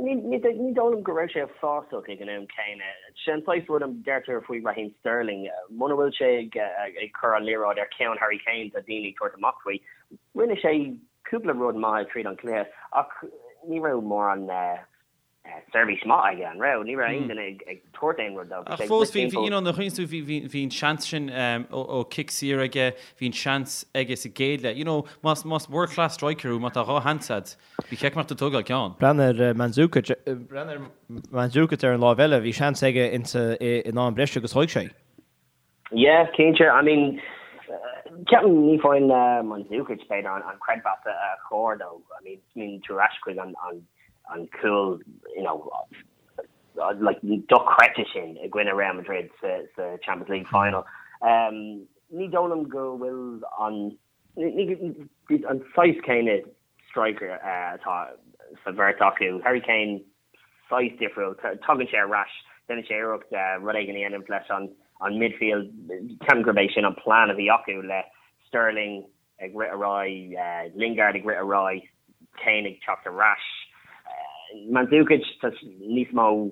ní dóigh liom go raibh sé uafásach ag an am céanna. Sé an saghas rud a deirtear faoi Raheem Sterling, muna bhfuil sé ag cur an liathróid ar cheann Harry Kane tá daoine ag tabhairt amach faoi. Rinne sé cúpla rud maith tríd an cluiche ach ní raibh mórán seirbhís maith aige, an raibh? Ní raibh aon duine ag tabhairt aon rud dó. Ach fós, bhí, you know, nuair a chuimhníonn tú, bhí, bhí, bhí an seans sin ó cic saor aige, bhí an seans aige sa gcéad leath. You know, más, más world class striker thú, má tá dhá sheans agat, ba cheart go mbeadh tú ag tógáil ceann. Breathnaigh ar Mandzukic, breathnaigh ar Mandzukic ar an láimh eile, bhí seans aige insa, in am breise agus thóig sé. Yeah, cinnte. I mean, ceapaim ní faigheann Mandzukic b'fhéidir an creidmheas a chóir dó. I mean, smaoiníonn tú ar ais chuig an an cúl, you know, like dochreidte sin i gcoinne Real Madrid sa sa Champions League final. Um, ní dóigh liom go bhfuil an an saghas céanna striker atá sa bheirt acu. Harry Kane saghas difriúil. Tagann sé ar ais, déanann sé iarracht rud éigin a dhéanamh leis an midfield. Ceapaim gurb é sin an plean a bhí acu le Sterling ag rith ar aghaidh, Lingard ag rith ar aghaidh, Kane ag teacht ar ais. Mandzukic, tá níos mó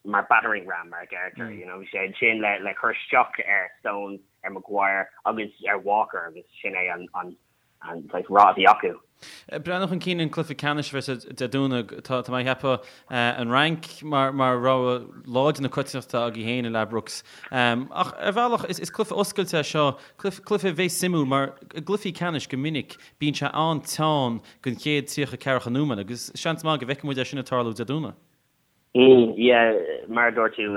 mar battering ram mar a deirtear, you know, bhí sé ansin le cur isteach ar Stones, ar Maguire agus ar Walker agus sin é an an saghas rath a bhí acu. Breathnú chun cinn an cluiche ceannais a bheas Dé Domhnaigh, tá mé ag ceapadh an Fhrainc mar rogha láidir na coitiantachta agaibh féin i Ladbrokes. Ach ar bhealach is cluiche oscailte é seo, cluiche a bheas suimiúil mar i gcluichí ceannais go minic bíonn sé an-teann don chéad 30 ceathracha nóiméad agus seans maith go bhfeicfidh muid é sin ag tarlú Dé Domhnaigh. Yeah, mar a dúirt tú,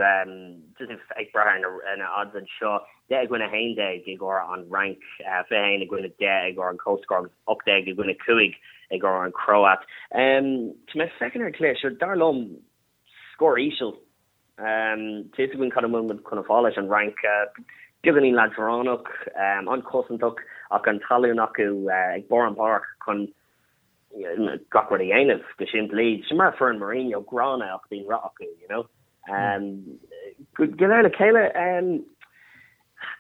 just ag brath ar na odds anseo, 10 i gcoinne 11 i gcomhair an Fhrainc, 21 i gcoinne 10 i gcomhair an comhscór agus 18 i gcoinne 5 i gcomhair an Chróit. Tá mé ag féachaint ar an chluiche seo, dar liom, scór íseal. Tá fhios againn cad a bhfuil muid chun a fáil leis an Fhrainc, beagáinín leadránach, an-chosantach ach an tallann acu ag barr an pháirc chun gach rud a dhéanamh go simplí. Sin mar foireann Mourinho, gránna ach bíonn rath acu, you know. Go léir le chéile,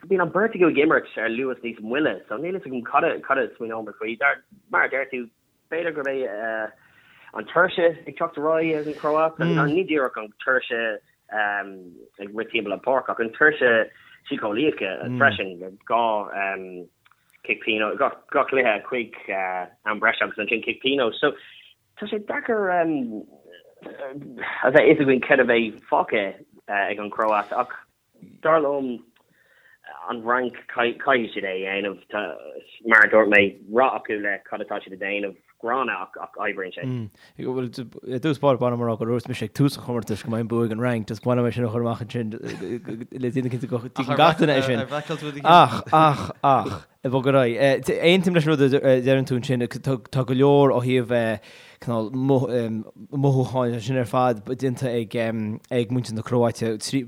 bíonn an beirt acu ag imirt ar luas níos moille, so níl fhios agam cad a cad a smaoineoidh muid faoi. Dar, mar a deir tú, b'fhéidir gurb é an tuirse ag teacht ar aghaidh ag an Chróit, ní díreach an tuirse ag rith timpeall an pháirc ach an tuirse síceolaíoch freisin, gá cic pionóis, gach cluiche chuig am breise agus ansin cic pionóis. So tá sé deacair a bheith fhios againn céard a bheidh fágtha. ag an Chróit ach dar liom an Fhrainc caithfidh siad é a dhéanamh. Mar a dúirt mé, rath acu le cad atá siad a dhéanamh, gránna ach ach oibríonn sé. Bhuel, i dtús báire ba mhaith liom a rá gur dhúirt mise ag tús an chomórtais go mbeidh an bua ag an Fhrainc, just ba mhaith liom é sin a chur amach ansin le déanamh cinnte go dtuigeann gach duine é sin. Ach, ach, ach, ag bogadh ar aghaidh. Aontaím leis an rud a deireann tú ansin, tá go leor ó thaobh cineál mothúcháin sin ar fad déanta ag muintir na Cróite, trí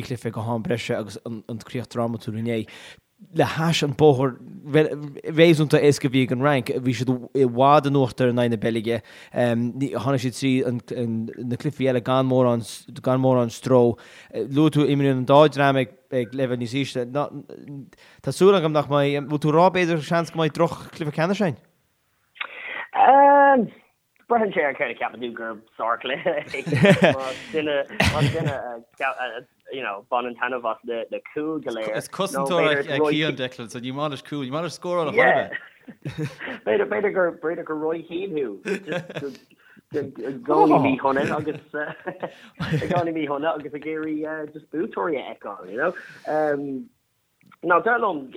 chluiche go ham breise agus an críoch drámatúil inné. Le hais an bóthar réasúnta éasca a bhí ag an Fhrainc, bhí siad i bhfad in uachtar in aghaidh na Beilge, tháinig siad trí na cluichí eile gan mórán gan mórán stró. Luaigh tú imríonn an dá dream ag leibhéal níos ísle. Tá súil agam nach mbeidh, bhfuil tú ag rá b'fhéidir seans go mbeidh droch-chluiche ceannais againn? Braitheann sé ar céard a cheapann tú gur sárchluiche é. Más duine más duine a you know baineann taitneamh as na na cúil go léir. Is cosantóir é Cian Declan so ní maith leis cúil, ní maith leis scóráil a chor ar bith. B'fhéidir b'fhéidir gur b'fhéidir gur Roy Keane thú. Just i gcónaí míshona agus i gcónaí míshona agus ag iarraidh just buaiteoirí a fheiceáil, you know. Nó dar liom,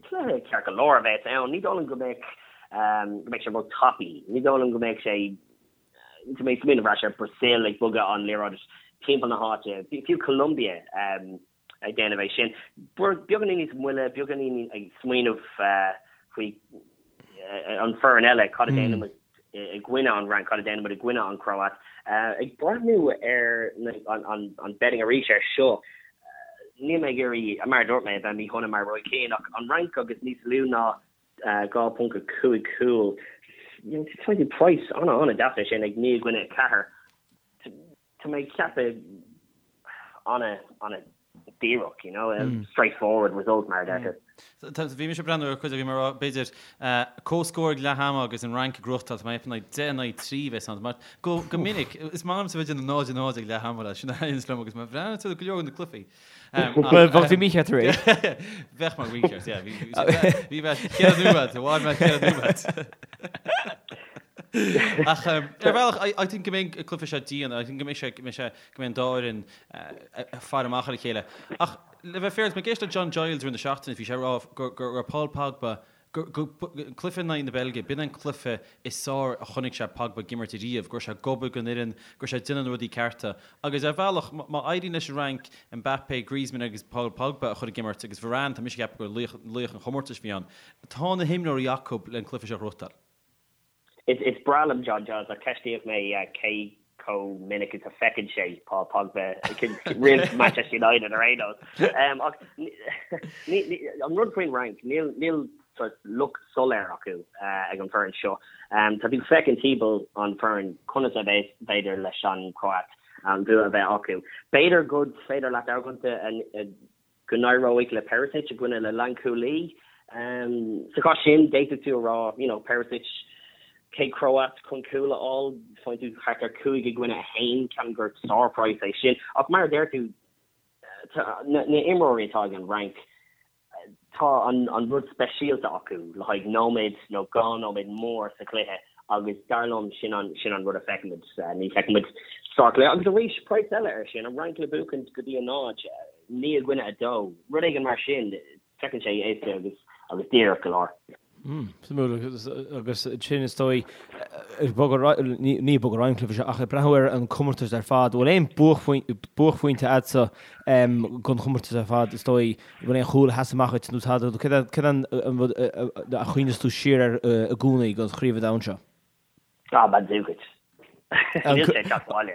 cluiche ceart go leor a bheas ann. Ní dóigh liom go mbeidh go mbeidh sé ró-tapaidh. Ní dóigh liom go mbeidh sé go mbeidh smaoineamh ar ais ar Brazil ag bogadh an liathróid timpeall na háite, fiú Colombia ag déanamh é sin. Beagáinín níos moille, beagáinín ag smaoineamh faoi an foireann eile, cad a déanann muid i gcoinne an Fhrainc, cad a déanann muid i gcoinne an Chróit. Ag breathnú ar an betting arís ar seo, níl mé ag iarraidh, mar a dúirt mé, a bheith míshona mar Roy Keane, ach an Fhrainc agus níos lú ná 2.5 cúl, faigheann tú praghas an-an-deas ar sin ag 9 i gcoinne 4. Tá mé ag ceapadh ana, ana díreach, you know, straight forward result mar a deirtear. Bhí mise ag breathnú ar chuid, bhí mé ag rá, b'fhéidir, comhscór ag leath ama agus an Fhrainc ag gnóthachtáil, tá mé ag ceapadh 10 in aghaidh 3 a bheas ann. Mar go go minic, is maith liomsa bheith ag déanamh 0 0 ag leath ama leis, sin a thaitníonns liom agus má bhreathnaíonn tú ar go leor de na cluichí. Bhuel, bheadh tú mícheart arís. Bheadh mé mícheart, yeah. Bhí mé ceithre nóiméad, bhain mé ceithre nóiméad. Ach ar bhealach, I think go mbeidh an cluiche seo dian, I think go mbeidh sé, go mbeidh sé, go mbeidh an dá fhoireann ag faire amach ar a chéile. Ach le bheith fair, mé ag éisteacht le John Giles i rith na seachtaine, bhí sé ag rá go go raibh Paul Pogba, go go an cluiche in aghaidh na Beilge, b'in an cluiche is fearr a chonaic sé Pogba ag imirt ariamh, go raibh sé ag obair don fhoireann, go raibh sé ag déanamh na rudaí cearta. Agus ar bhealach, má éiríonn leis an Fhrainc Mbappé, Griezmann agus Paul Pogba a chur ag imirt agus Varane, tá mise ag ceapadh gur laoch laoch an chomórtais a bhí ann, tá na himreoirí acu le an cluiche seo a ghnóthachtáil. Is breá liom John Giles ach ceistíodh mé cé chomh minic is a feiceann sé Paul Pogba roimh Manchester United ar aon nós. Ach an rud faoin Fhrainc, níl níl sort look soiléir acu ag an bhfoireann seo. Tá tú ag féachaint timpeall an foireann conas a b'fhéidir leis an Chróit an bua a bheith acu. B'fhéidir go féidir leat argóint go n-éireoidh le Perisic i gcoinne le lánchúlaí. Sa chás sin, d'fhéadfadh tú a rá, you know, Perisic, chéad Chróit chun cúl a fháil, faigheann tú thart ar 5 i gcoinne 1, ceapaim gur sár-praghas é sin. Ach mar a deir tú, na imreoirí atá ag an Fhrainc, Tá an rud speisialta acu le haghaidh nóiméad nó 2 nóiméad mór sa chluiche agus dar liom sin an sin an rud a feicfimid. Ní feicfimid sárchluiche. Agus arís, praghas eile air sin, an Fhrainc le buachaint go dtí a 0, 9 i gcoinne 2, rud éigin mar sin, feiceann sé éasca agus agus díreach go leor. Suimiúil agus sin is dóigh ag bogadh ar aghaidh, ní ag bogadh ar aghaidh an cluiche seo ach ag breathnú ar an comórtas ar fad, bhfuil aon buaicphointe agatsa don chomórtas ar fad is dóigh, bhfuil aon chúl a sheas amach duit nó tada, céard é an rud a chuimhneos tú siar air i gcónaí don Chraobh an Domhain seo? Ah, Mandzukic. Níl sé ag teacht abhaile.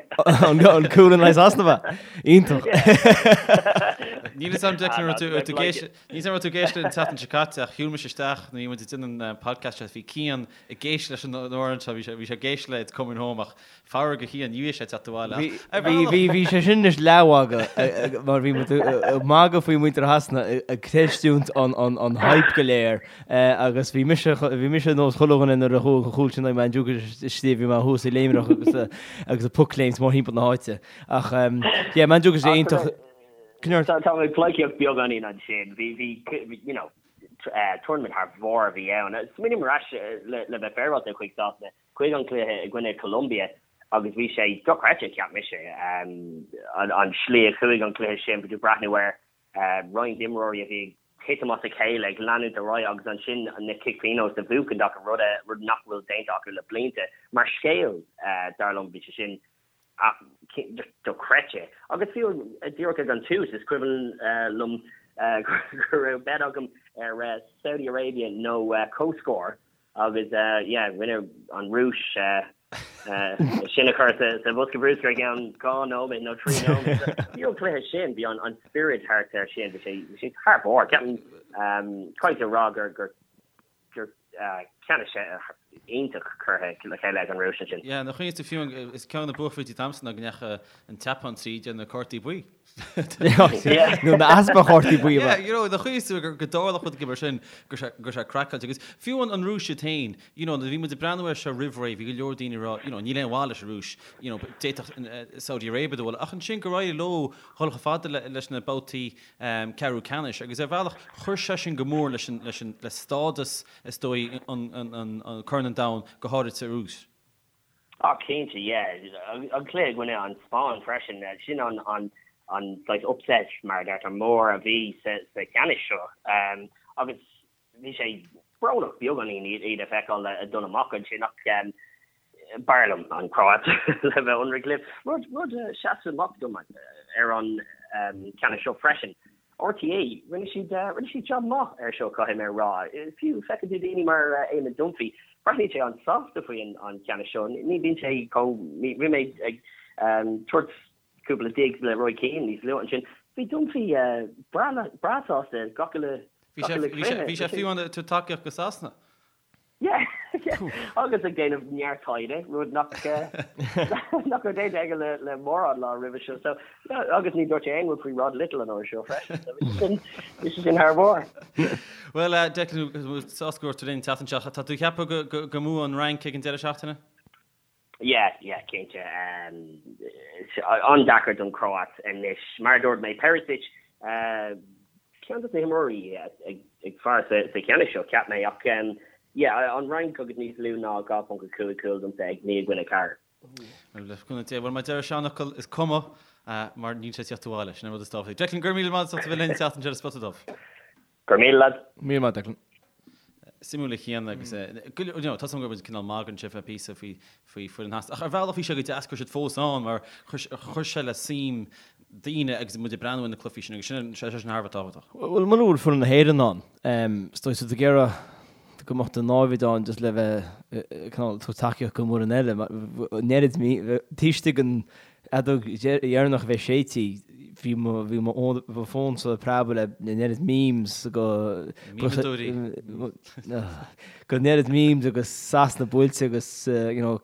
An cúl in aghaidh Sasana? Iontach. Níl fhios a'm Declan raibh tú ag éisteacht níl fhios a'm raibh tú ag éisteacht an tseachtain seo caite ach shiúil mise isteach nuair a bhí muid ag déanamh an podcast seo bhí Cian ag éisteacht leis an amhrán seo bhí sé bhí sé ag éisteacht le It's Coming Home ach faraor do Chian ní bhí sé ag teacht abhaile ach ar Bhí bhí bhí sé sin anois leathmhagadh mar bhí muid ag magadh faoi muintir Shasana ag creistiúint an an an hype go léir Agus bhí mise, bhí mise ar nós chuile dhuine nuair a chuaigh an chúl sin ag Mandzukic istigh, bhí mé thuas ag léimreach agus agus ag pocléimt mórthimpeall na háite. Ach yeah, Mandzukic é iontach. Tá tá mé ag pleidhcíocht beagáinín ansin. Bhí bhí you know tournament thar bharr a bhí ann. Smaoiním ar ais le le bheith féaráilte chuig Sasana, chuig an cluiche i gcoinne Colombia. Agus bhí sé dochreidte, cheap mise, an slí a chuaigh an cluiche sin, bhí tú ag breathnú ar roinnt imreoirí a bhí ag titim as a chéile, ag leanúint ar aghaidh agus ansin na cic pionóis a bhuachaint acu, rud rud nach bhfuil déanta acu le blianta. Mar scéal, dar liom, bhí sé sin just dochreidte. Agus fiú díreach ag an tús, is cuimhin liom go raibh bet agam ar Saudi Arabia nó comhscór Agus yeah, rinne an Rúis sin a chur sa bhosca bruscair i gceann 2 nóiméad nó 3 nóiméad. Bhí an cluiche sin, bhí an spiorad thart air sin, bhí sé bhí sé thar barr. Ceapaim caithfidh a rá gur gur gur ceannais iontach curtha le chéile ag an Rúis ansin. Yeah, nuair a chuimhníos tú fiú is ceann de na buaicphointí domsa ná go ndeachaigh an tSeapáin tríd ar na cártaí buí. Nó na easpa chártaí buí. Yeah, you know, nuair a chuimhníos tú go dtarlódh rud mar sin, go raibh sé craiceáilte. Agus fiú an Rúis iad féin, you know, nuair a bhí muid ag breathnú air seo roimh ré, bhí go leor daoine ag rá, you know, níl aon mhaith leis an Rúis, you know, d'fhéadfadh Saudi Arabia dul, ach ansin gur éirigh leo dhul chomh fada leis na babhtaí ceathrú ceannais agus ar bhealach chuir sé sin go mór leis an, leis an, le stádas, is dóigh, an, an, an Corn an Domhain, go háirid sa Rúis. Ah cinnte, yeah. An cluiche i gcoinne an Spáinn freisin, sin an an an saghas upset mar a deirtear mór a bhí sa sa cheannais seo. Agus bhí sé brónach beagáinín iad a fheiceáil ag dul amach ansin ach b'fhearr liom an Chróit le bheith ionraic libh. Rud rud a sheas amach dom ar an cheannas seo freisin RTÉ, rinne siad, rinne siad jab maith air seo, caithfidh mé a rá. Fiú, feiceann tú daoine mar Eamon Dunphy, breathnaíonn sé an-sásta faoi an cheannas seo. Ní bhíonn sé chomh, bhí mé ag tabhairt cúpla digs le Roy Keane níos luaithe ansin. Bhí Dunphy breá sásta gach uile, gach uile chluiche. Bhí sé fiú ag tabhairt tacaíocht do Sasana. Yeah, yeah. Agus ag déanamh neart taighde, rud nach nach raibh déanta aige le le mórán lá roimhe seo. So, yeah, agus ní dúirt sé aon rud faoi Rod Little an uair seo freisin. So, bhí sé sin, bhí sé sin thar barr. Bhuel, Declan, sásta go raibh tú linn an tseachtain seo. Tá tú ag ceapadh go go go mbuafaidh an Fhrainc ag an deireadh seachtaine? Yeah, yeah, cinnte. An-deacair don Chróit anois. Mar a dúirt mé, Perisic, ceann de na himreoirí is fearr sa cheannais seo, cheap mé. Ach, yeah, an Fhrainc agus níos lú ná 2.5 cúl domsa ag 9-4. Bhuel, le cúnamh Dé. Bhuel, mar a deir an seanfhocal, is cuma, mar níl sé ag tíocht abhaile. Sin an rud is tábhachtaí. Declan, go raibh míle maith agat as ucht a bheith linn an tseachtain seo ar Spota Dubh. Go raibh míle, lads. Míle maith, Declan. Suimiúil a Chian agus go you know tá 's agam go raibh muid cineál magaidh ansin fé píosa faoi faoi foireann Shasana ach ar bhealach bhí sé go deas go raibh siad fós ann mar chuir chuir sé le suim daoine agus muid ag breathnú ar na cluichí sin agus sin sé sin thar a bheith tábhachtach. Bhuel mura bhfuil foireann na hÉireann ann, is dóigh tá tú ag iarraidh go mbeadh do náimhid ann just le bheith cineál tabhairt tacaíocht don bhfoireann eile. An oiread taobh istigh den fheadóg dheireanach a bheith séidte, bhí mo bhí mo mo fón-sa ag preabadh le an oiread memes go Mímeadóirí. go an oiread memes agus Sasana buailte agus you know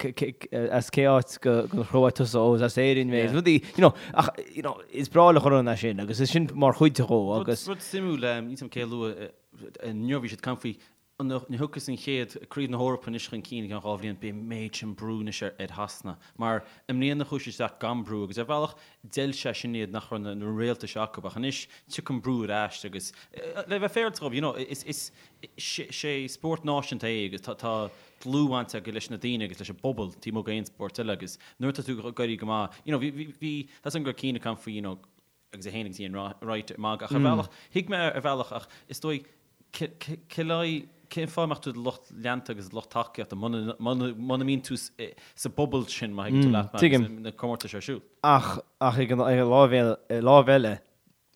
as cé áit go den Chróit tusa ó is as Éirinn mé rudaí you know ach you know is breá le chuile dhuine é sin agus is sin mar chuid dhó agus Rud suimiúil níl 's agam cé a luaigh inniu bhí siad ag caint faoi Nuair a thiocfas an chéad Craobh na hEorpa anois chun cinn i gceann 2 bhliain, beidh an méid sin brú anois ar Shasana. Mar i mbliana chuaigh siad isteach gan brú agus ar bhealach d'fheil sé sin iad nach raibh na réalta seo acu. Ach anois tiocfaidh an brú ar ais agus le bheith féaráilte dhóibh, you know, is is sé spórt náisiúnta é agus tá tá dlúthbhaint aige leis na daoine agus leis an bpobal taobh amuigh d'aon spórt eile agus nuair atá tú ag éirí go maith, you know, bhí bhí bhí tá 's agam go raibh Cian ag caint faoi, you know, agus é féin agus Ian Wright ag magadh ach ar bhealach, thuig mé ar bhealach ach is dóigh cén fáth a mbeadh tú i do lucht leanta agus lucht tacaíochta muna mbíonn tú sa bpobal sin má thuigeann tú leat mé agus na comórtais ar siúl. Ach ach ag an láimh eile,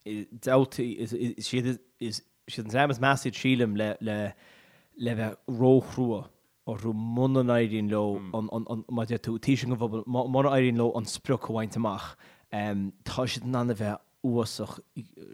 dabhtaí is iad is iad an dream is measa iad sílim le le le bheith róchrua orthu muna n-éiríonn leo an, an, mar a deir tú, taobh istigh den bpobal, mura éiríonn leo an sprioc a bhaint amach, tá siad in ann a bheith uafásach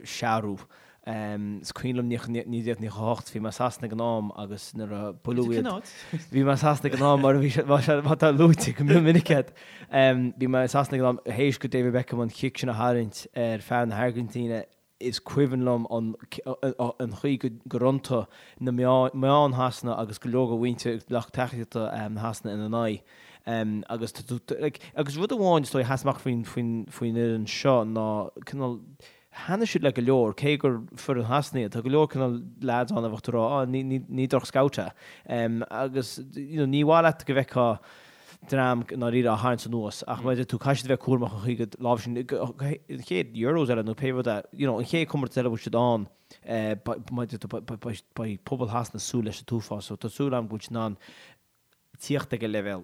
searbh. Is cuimhin liom 1998, bhí mé i Sasana ag an am agus nuair a buaileadh iad, bhí mé i Sasana ag an am mar a bhí sé, mar atá luaite go mion minic agat, bhí mé i Sasana ag an am théis go David Beckham an chic sin a tharraingt ar fear na hAirgintíne, Is cuimhin liom an chaoi gur iontaigh na meáin Shasana agus go leor de mhuintir lucht tacaíochta Shasana ina n-aghaidh. Agus agus rud amháin is dóigh a sheas amach faoin faoin fhoireann seo ná cineál thaitnigh siad le go leor, cé gur foireann Shasana iad, tá go leor cineál lads ann a bheadh tú ag rá, ah ní ní droch-scout é. Agus you know ní mhaith leat go bhfeicfeá. dream i ndáiríre á tharraingt anuas ach mar a deir tú caithfidh siad a bheith cúramach an chaoi go láimhseáil an chéad Euros eile nó pé rud é, you know, an chéad comórtas eile a bhfuil siad ann, mar a deir tú, beidh pobal Shasana ag súil leis an t-uafás so tá súil agam go bhfuil siad in ann tíocht ag an leibhéal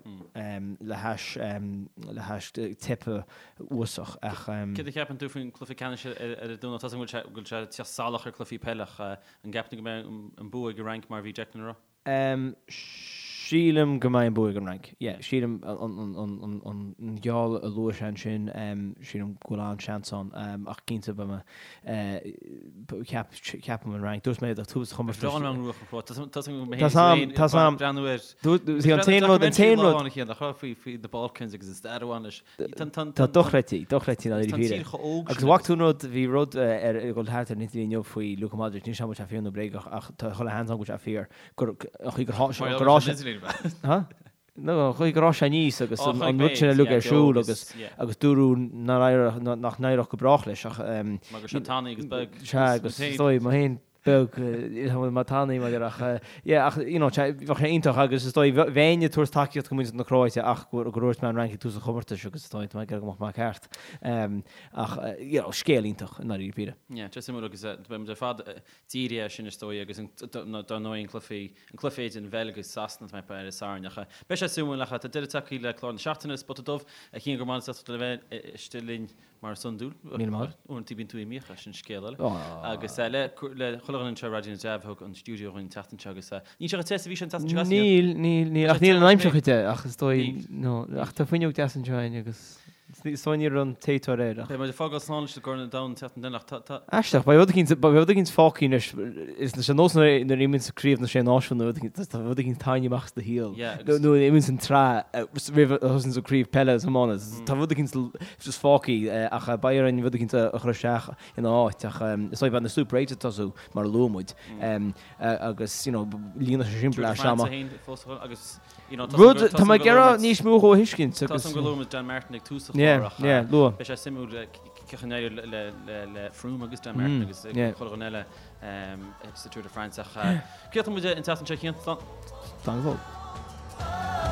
le hais le hais teipe uafásach ach. Céard a cheapann tú faoin cluiche ceannais ar an Domhnach? Tá a fhios agam go bhfuil sé ag tíocht salach ar cluichí peile ach an gceapann tú go mbeidh an bua ag an Fhrainc mar a bhí Declan a rá? Sílim go mbeidh an bua ag an Fhrainc. Yeah, sílim an geall a luaigh sé ansin, sílim go bhfuil an-seans ann ach cinnte beidh mé, ceap, ceapaim an Fhrainc. Dúirt mé do tús an chomórtais. Bhreá liom an Ruach an Chróit. Tá a fhios agam, breathnú ar. Dúirt, an t-aon rud, an t-aon rud. Amháin a nach raibh faoi faoi na Balkans agus an stair a bhain leis. Tá dochreidte, dochreidte i ndáiríre. Agus bhfaca tú an rud, bhí rud ar ag dul thart ar an idirlíon inniu faoi Luka Modric, níl a fhios agam an bhfuil sé fíor nó bréagach ach tá chuile sheans ann go bhfuil sé fíor, gur, an chaoi gur tháinig sé, gur fhás sé, ha? No, an chaoi gur fhás sé aníos agus an rud sin uilig ar siúl agus, agus dúradh nár éireodh, nach n-éireodh go brách leis ach, Mar go raibh sé tanaí agus beag. Sea, agus is dóigh, mé féin, beag mar tanaí mar ach yeah ach you know bheadh sé iontach agus is dóigh bheinn ag tabhairt tacaíocht go muintir na Cróite ach gur dhúirt mé an Fhrainc ag tús an chomórtais agus is dóigh tá mé ag iarraidh go mbeadh mé ceart ach you know scéal iontach i ndáiríre píre. Yeah, tá suimiúil agus beidh muid ar fad dírithe air sin is dóigh agus dar ndóigh an cluiche an cluiche idir an Bheilg agus Sasana atá ar an Satharn ach beidh sé suimiúil ach tá deireadh tagtha le clár na seachtaine Spota Dubh a Chian go raibh maith agat as ucht a bheith istigh linn Mar is iondúil, Míle maith. Uaireanta bíonn tú imithe, sin scéal eile. Agus le chuile dhuine anseo i Raidió na dTreabh a thug an stiúideo dhúinn an tseachtain seo agus níl sé chomh te is a bhí sé an tseachtain seo caite. Níl, níl, níl, ach níl an aimsir chomh te ach is dóigh, no, ach tá fuinneog deas anseo againn agus is dóigh ní raibh an téiteoir air ach. Beidh muid ag fágáil slán leis an gCorn an Domhain an tseachtain eile ach tá, tá. Aisteach, beidh rud eicínt, beidh rud eicínt fágtha anois, is ar nós nuair a imíonns Craobh na Sé Náisiún nó rud eicínt, tá rud eicínt tarraingthe amach as do shaol. Yeah, agus. Nó nuair a imíonns an tsraith roimh a thosaíonns an craobh peile is iomána, tá rud eicínt just fágtha ach beidh orainn rud eicínt a chur isteach ina áit ach is dóigh beidh na Super Eights ag tosú mar a luaigh muid agus you know líonfaidh sé sin bleaist ama. Rud tá mé ag iarraidh níos mó dhó a thuiscint agus. Tá go luaigh muid Dan Martin ag tús an chláir ach beidh sé suimiúil cén chaoi a n-éireoidh le Froome agus Dan Martin agus chuile dhuine eile sa Tour de France ach críochnóidh muid an tseachtain seo a Chian. Slán go fóill.